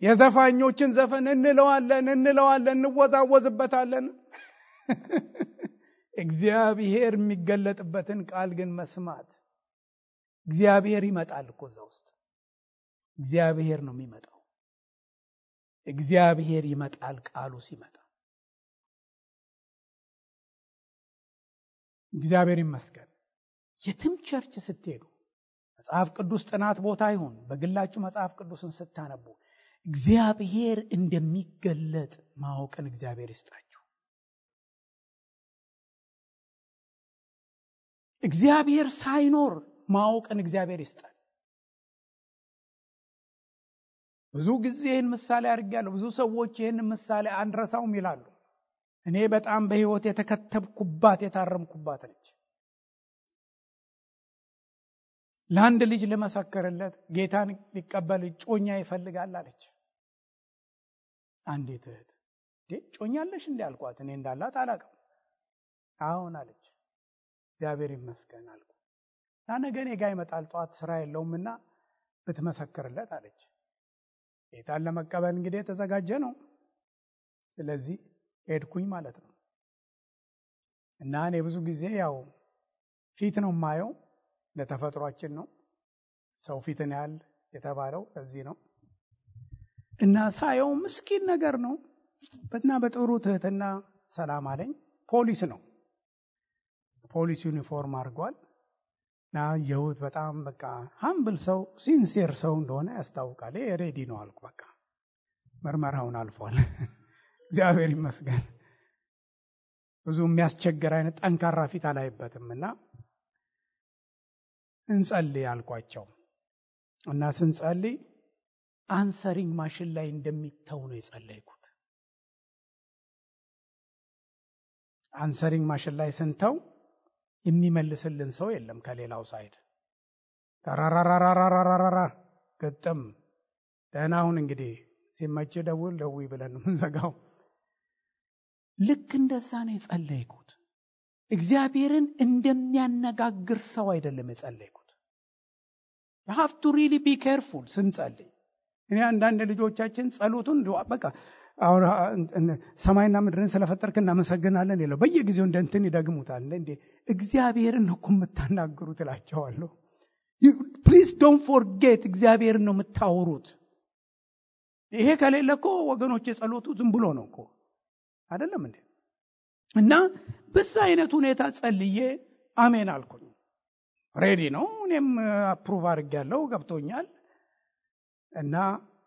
የዘፋኞችን ዘፈን እንለዋለን እንወዛወዝበታለን። እግዚአብሔር የሚገለጥበትን ቃል ግን መስማት። እግዚአብሔር ይመጣል እኮ እዛ ውስጥ እግዚአብሔር ነው የሚመጣው። እግዚአብሔር ይመጣል ቃሉ ሲመጣ። እግዚአብሔር ይመስገን። የትም ቸርች ስትሄዱ መጽሐፍ ቅዱስ ጥናት ቦታ ይሁን በግላችሁ መጽሐፍ ቅዱስን ስታነቡ እግዚአብሔር እንደሚገለጥ ማወቅን እግዚአብሔር ይስጣችሁ። እግዚአብሔር ሳይኖር ማወቅን እግዚአብሔር ይስጣል። ብዙ ጊዜ ይህን ምሳሌ አድርጌያለሁ። ብዙ ሰዎች ይህን ምሳሌ አንረሳውም ይላሉ። እኔ በጣም በሕይወት የተከተብኩባት የታረምኩባት ነች። ለአንድ ልጅ ልመሰክርለት ጌታን ሊቀበል ጮኛ ይፈልጋል አለች። አንዲት እህት ጮኛለሽ እንዴ አልኳት። እኔ እንዳላት አላውቅም። አሁን አለች። እግዚአብሔር ይመስገን አልኩ። ነገ እኔ ጋር ይመጣል ጠዋት ስራ የለውምና ብትመሰክርለት አለች። ጌታን ለመቀበል እንግዲህ የተዘጋጀ ነው። ስለዚህ ሄድኩኝ ማለት ነው። እና እኔ ብዙ ጊዜ ያው ፊት ነው የማየው፣ ለተፈጥሯችን ነው። ሰው ፊትን ያህል የተባለው ለዚህ ነው። እና ሳየው ምስኪን ነገር ነው። በትና በጥሩ ትህትና ሰላም አለኝ። ፖሊስ ነው። ፖሊስ ዩኒፎርም አድርጓል። እና የውት በጣም በቃ ሃምብል ሰው ሲንሲር ሰው እንደሆነ ያስታውቃል። ሬዲ ነው አልኩ። በቃ ምርመራውን አልፏል። እግዚአብሔር ይመስገን። ብዙ የሚያስቸግር አይነት ጠንካራ ፊት አላይበትም። እና እንጸልይ አልኳቸው። እና ስንጸልይ አንሰሪንግ ማሽን ላይ እንደሚተው ነው የጸለይኩት። አንሰሪንግ ማሽን ላይ ስንተው የሚመልስልን ሰው የለም ከሌላው ሳይድ። ተራራራራራራራ ገጠም ደህና ሁን እንግዲህ ሲመች ደውይ ብለን ምንዘጋው። ልክ እንደዛ ነው የጸለይኩት። እግዚአብሔርን እንደሚያነጋግር ሰው አይደለም የጸለይኩት። you have to really be careful ስንጸልይ። እኔ አንዳንድ ልጆቻችን ጸሎቱን በቃ አሁን ሰማይና ምድርን ስለፈጠርክ እናመሰግናለን ይላል። በየጊዜው እንደንትን ይደግሙታል። እንዴ እግዚአብሔርን ነው የምታናግሩት እላቸዋለሁ። ፕሊዝ ዶንት ፎርጌት እግዚአብሔርን ነው የምታወሩት። ይሄ ከሌለ እኮ ወገኖች የጸሎቱ ዝም ብሎ ነው እኮ አይደለም እንዴ? እና በዛ አይነት ሁኔታ ጸልዬ አሜን አልኩኝ። ሬዲ ነው። እኔም አፕሩቭ አድርጌያለሁ፣ ገብቶኛል። እና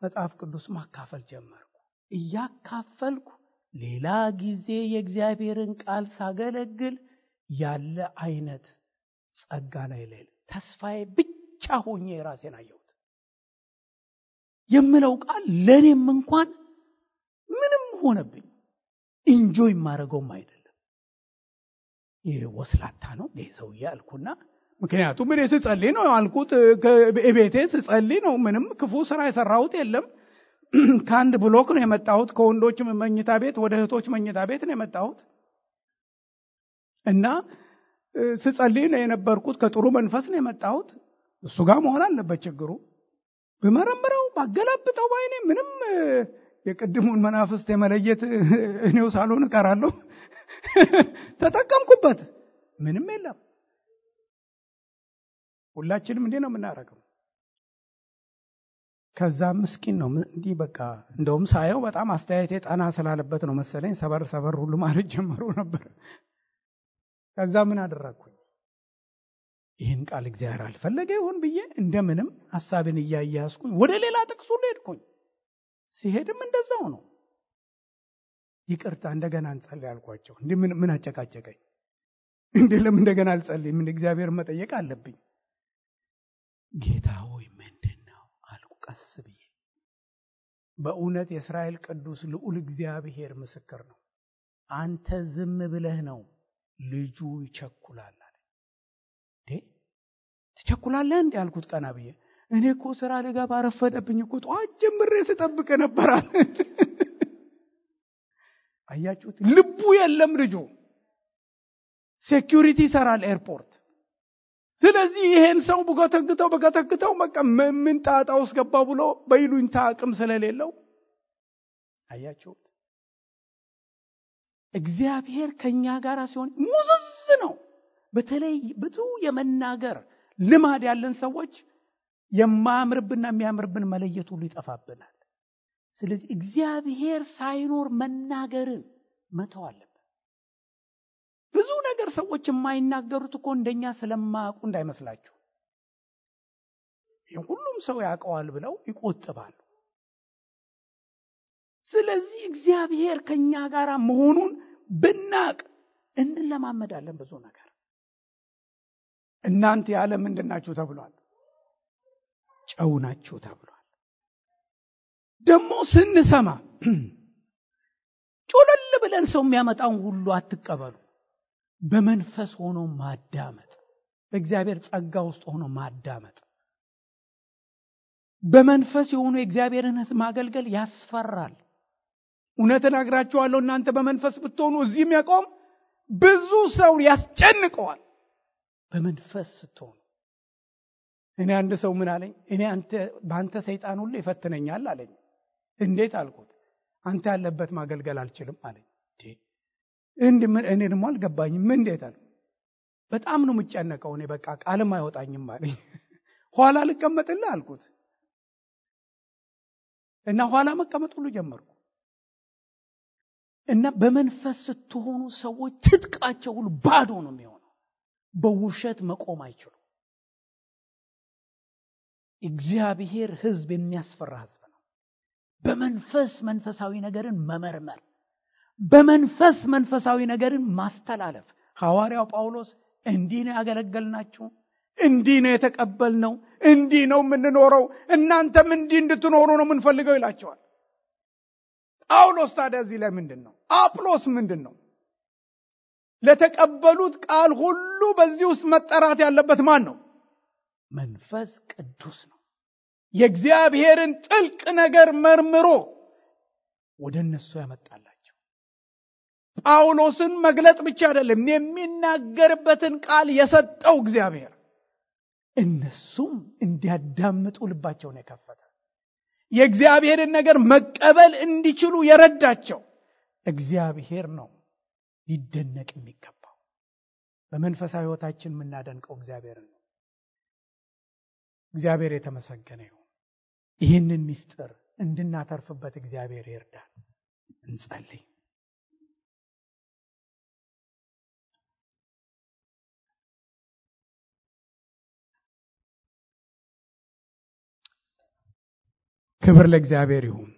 መጽሐፍ ቅዱስ ማካፈል ጀመርኩ። እያካፈልኩ ሌላ ጊዜ የእግዚአብሔርን ቃል ሳገለግል ያለ አይነት ጸጋ ላይ ሌለ ተስፋዬ ብቻ ሆኜ ራሴን አየሁት። የምለው ቃል ለኔም እንኳን ምንም ሆነብኝ። ኢንጆይ ማረገውም አይደለም። ይሄ ወስላታ ነው ይሄ ሰውዬ አልኩና፣ ምክንያቱም እኔ ስጸልይ ነው አልኩት። በቤቴ ስጸልይ ነው። ምንም ክፉ ስራ የሰራሁት የለም። ከአንድ ብሎክ ነው የመጣሁት። ከወንዶች መኝታ ቤት ወደ እህቶች መኝታ ቤት ነው የመጣሁት። እና ስጸልይ ነው የነበርኩት። ከጥሩ መንፈስ ነው የመጣሁት። እሱ ጋር መሆን አለበት ችግሩ። በመረምረው ባገላብጠው ባይኔ ምንም የቅድሙን መናፍስት የመለየት እኔው ሳልሆን እቀራለሁ። ተጠቀምኩበት። ምንም የለም። ሁላችንም እንዴ ነው የምናረገው። ከዛ ምስኪን ነው እንዲህ በቃ እንደውም ሳየው በጣም አስተያየቴ ጠና ስላለበት ነው መሰለኝ ሰበር ሁሉ ማለት ጀመሩ ነበር። ከዛ ምን አደረኩኝ? ይህን ቃል እግዚአብሔር አልፈለገ ይሆን ብዬ እንደምንም ሐሳብን እያያዝኩኝ ወደ ሌላ ጥቅስ ሁሉ ሄድኩኝ። ሲሄድም እንደዛው ነው። ይቅርታ እንደገና እንጸልይ አልኳቸው። እንዴ ምን አጨቃጨቀኝ? እንዴ ለምን እንደገና አልጸልይም? ምን እግዚአብሔር መጠየቅ አለብኝ። ጌታ ሆይ ምንድነው አልኩ ቀስ ብዬ። በእውነት የእስራኤል ቅዱስ ልዑል እግዚአብሔር ምስክር ነው። አንተ ዝም ብለህ ነው ልጁ ይቸኩላል አለ። ትቸኩላለህ እንዴ አልኩት ቀና ብዬ። እኔ እኮ ስራ ልገባ ረፈደብኝ እኮ ጧት ጀምሬ ስጠብቅ ነበር። አያችሁት? ልቡ የለም ልጁ። ሴኩሪቲ ይሰራል ኤርፖርት። ስለዚህ ይሄን ሰው በገተግተው በቃ ምን ጣጣ ውስጥ ገባ ብሎ በይሉኝታ አቅም ስለሌለው አያችሁት? እግዚአብሔር ከኛ ጋር ሲሆን ሙዝዝ ነው። በተለይ ብዙ የመናገር ልማድ ያለን ሰዎች የማያምርብንና የሚያምርብን መለየት ሁሉ ይጠፋብናል። ስለዚህ እግዚአብሔር ሳይኖር መናገርን መተው አለብን። ብዙ ነገር ሰዎች የማይናገሩት እኮ እንደኛ ስለማያውቁ እንዳይመስላችሁ። ሁሉም ሰው ያውቀዋል ብለው ይቆጥባሉ። ስለዚህ እግዚአብሔር ከኛ ጋር መሆኑን ብናቅ እንለማመዳለን ብዙ ነገር። እናንተ የዓለም ምንድናችሁ ተብሏል? ጨው ናችሁ ተብሏል። ደግሞ ስንሰማ ጮለል ብለን ሰው የሚያመጣውን ሁሉ አትቀበሉ። በመንፈስ ሆኖ ማዳመጥ፣ በእግዚአብሔር ጸጋ ውስጥ ሆኖ ማዳመጥ። በመንፈስ የሆኑ የእግዚአብሔርን ሕዝብ ማገልገል ያስፈራል። እውነት እነግራችኋለሁ፣ እናንተ በመንፈስ ብትሆኑ እዚህ የሚያቆም ብዙ ሰው ያስጨንቀዋል። በመንፈስ ስትሆኑ እኔ አንድ ሰው ምን አለኝ፣ እኔ በአንተ ሰይጣን ሁሉ ይፈትነኛል አለኝ። እንዴት አልኩት። አንተ ያለበት ማገልገል አልችልም አለኝ። እኔ ደግሞ አልገባኝም። ምን እንዴት አለ። በጣም ነው የምጨነቀው እኔ በቃ ቃልም አይወጣኝም አለኝ። ኋላ ልቀመጥልህ አልኩት እና ኋላ መቀመጥ ሁሉ ጀመርኩ። እና በመንፈስ ስትሆኑ ሰዎች ትጥቃቸው ሁሉ ባዶ ነው የሚሆነው። በውሸት መቆም አይችሉም። እግዚአብሔር ሕዝብ የሚያስፈራ ሕዝብ ነው። በመንፈስ መንፈሳዊ ነገርን መመርመር፣ በመንፈስ መንፈሳዊ ነገርን ማስተላለፍ። ሐዋርያው ጳውሎስ እንዲህ ነው ያገለገልናችሁ፣ እንዲህ ነው የተቀበልነው፣ እንዲህ ነው የምንኖረው፣ እናንተም እንዲህ እንድትኖሩ ነው የምንፈልገው ይላቸዋል። ጳውሎስ ታዲያ እዚህ ላይ ምንድን ነው? አጵሎስ ምንድን ነው? ለተቀበሉት ቃል ሁሉ በዚህ ውስጥ መጠራት ያለበት ማን ነው? መንፈስ ቅዱስ ነው። የእግዚአብሔርን ጥልቅ ነገር መርምሮ ወደ እነሱ ያመጣላቸው። ጳውሎስን መግለጥ ብቻ አይደለም፣ የሚናገርበትን ቃል የሰጠው እግዚአብሔር፣ እነሱም እንዲያዳምጡ ልባቸውን የከፈተ፣ የእግዚአብሔርን ነገር መቀበል እንዲችሉ የረዳቸው እግዚአብሔር ነው። ሊደነቅ የሚገባው በመንፈሳዊ ሕይወታችን የምናደንቀው እግዚአብሔርን ነው። እግዚአብሔር የተመሰገነ ይሁን። ይህንን ምስጢር እንድናተርፍበት እግዚአብሔር ይርዳል። እንጸልይ። ክብር ለእግዚአብሔር ይሁን።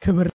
ክብር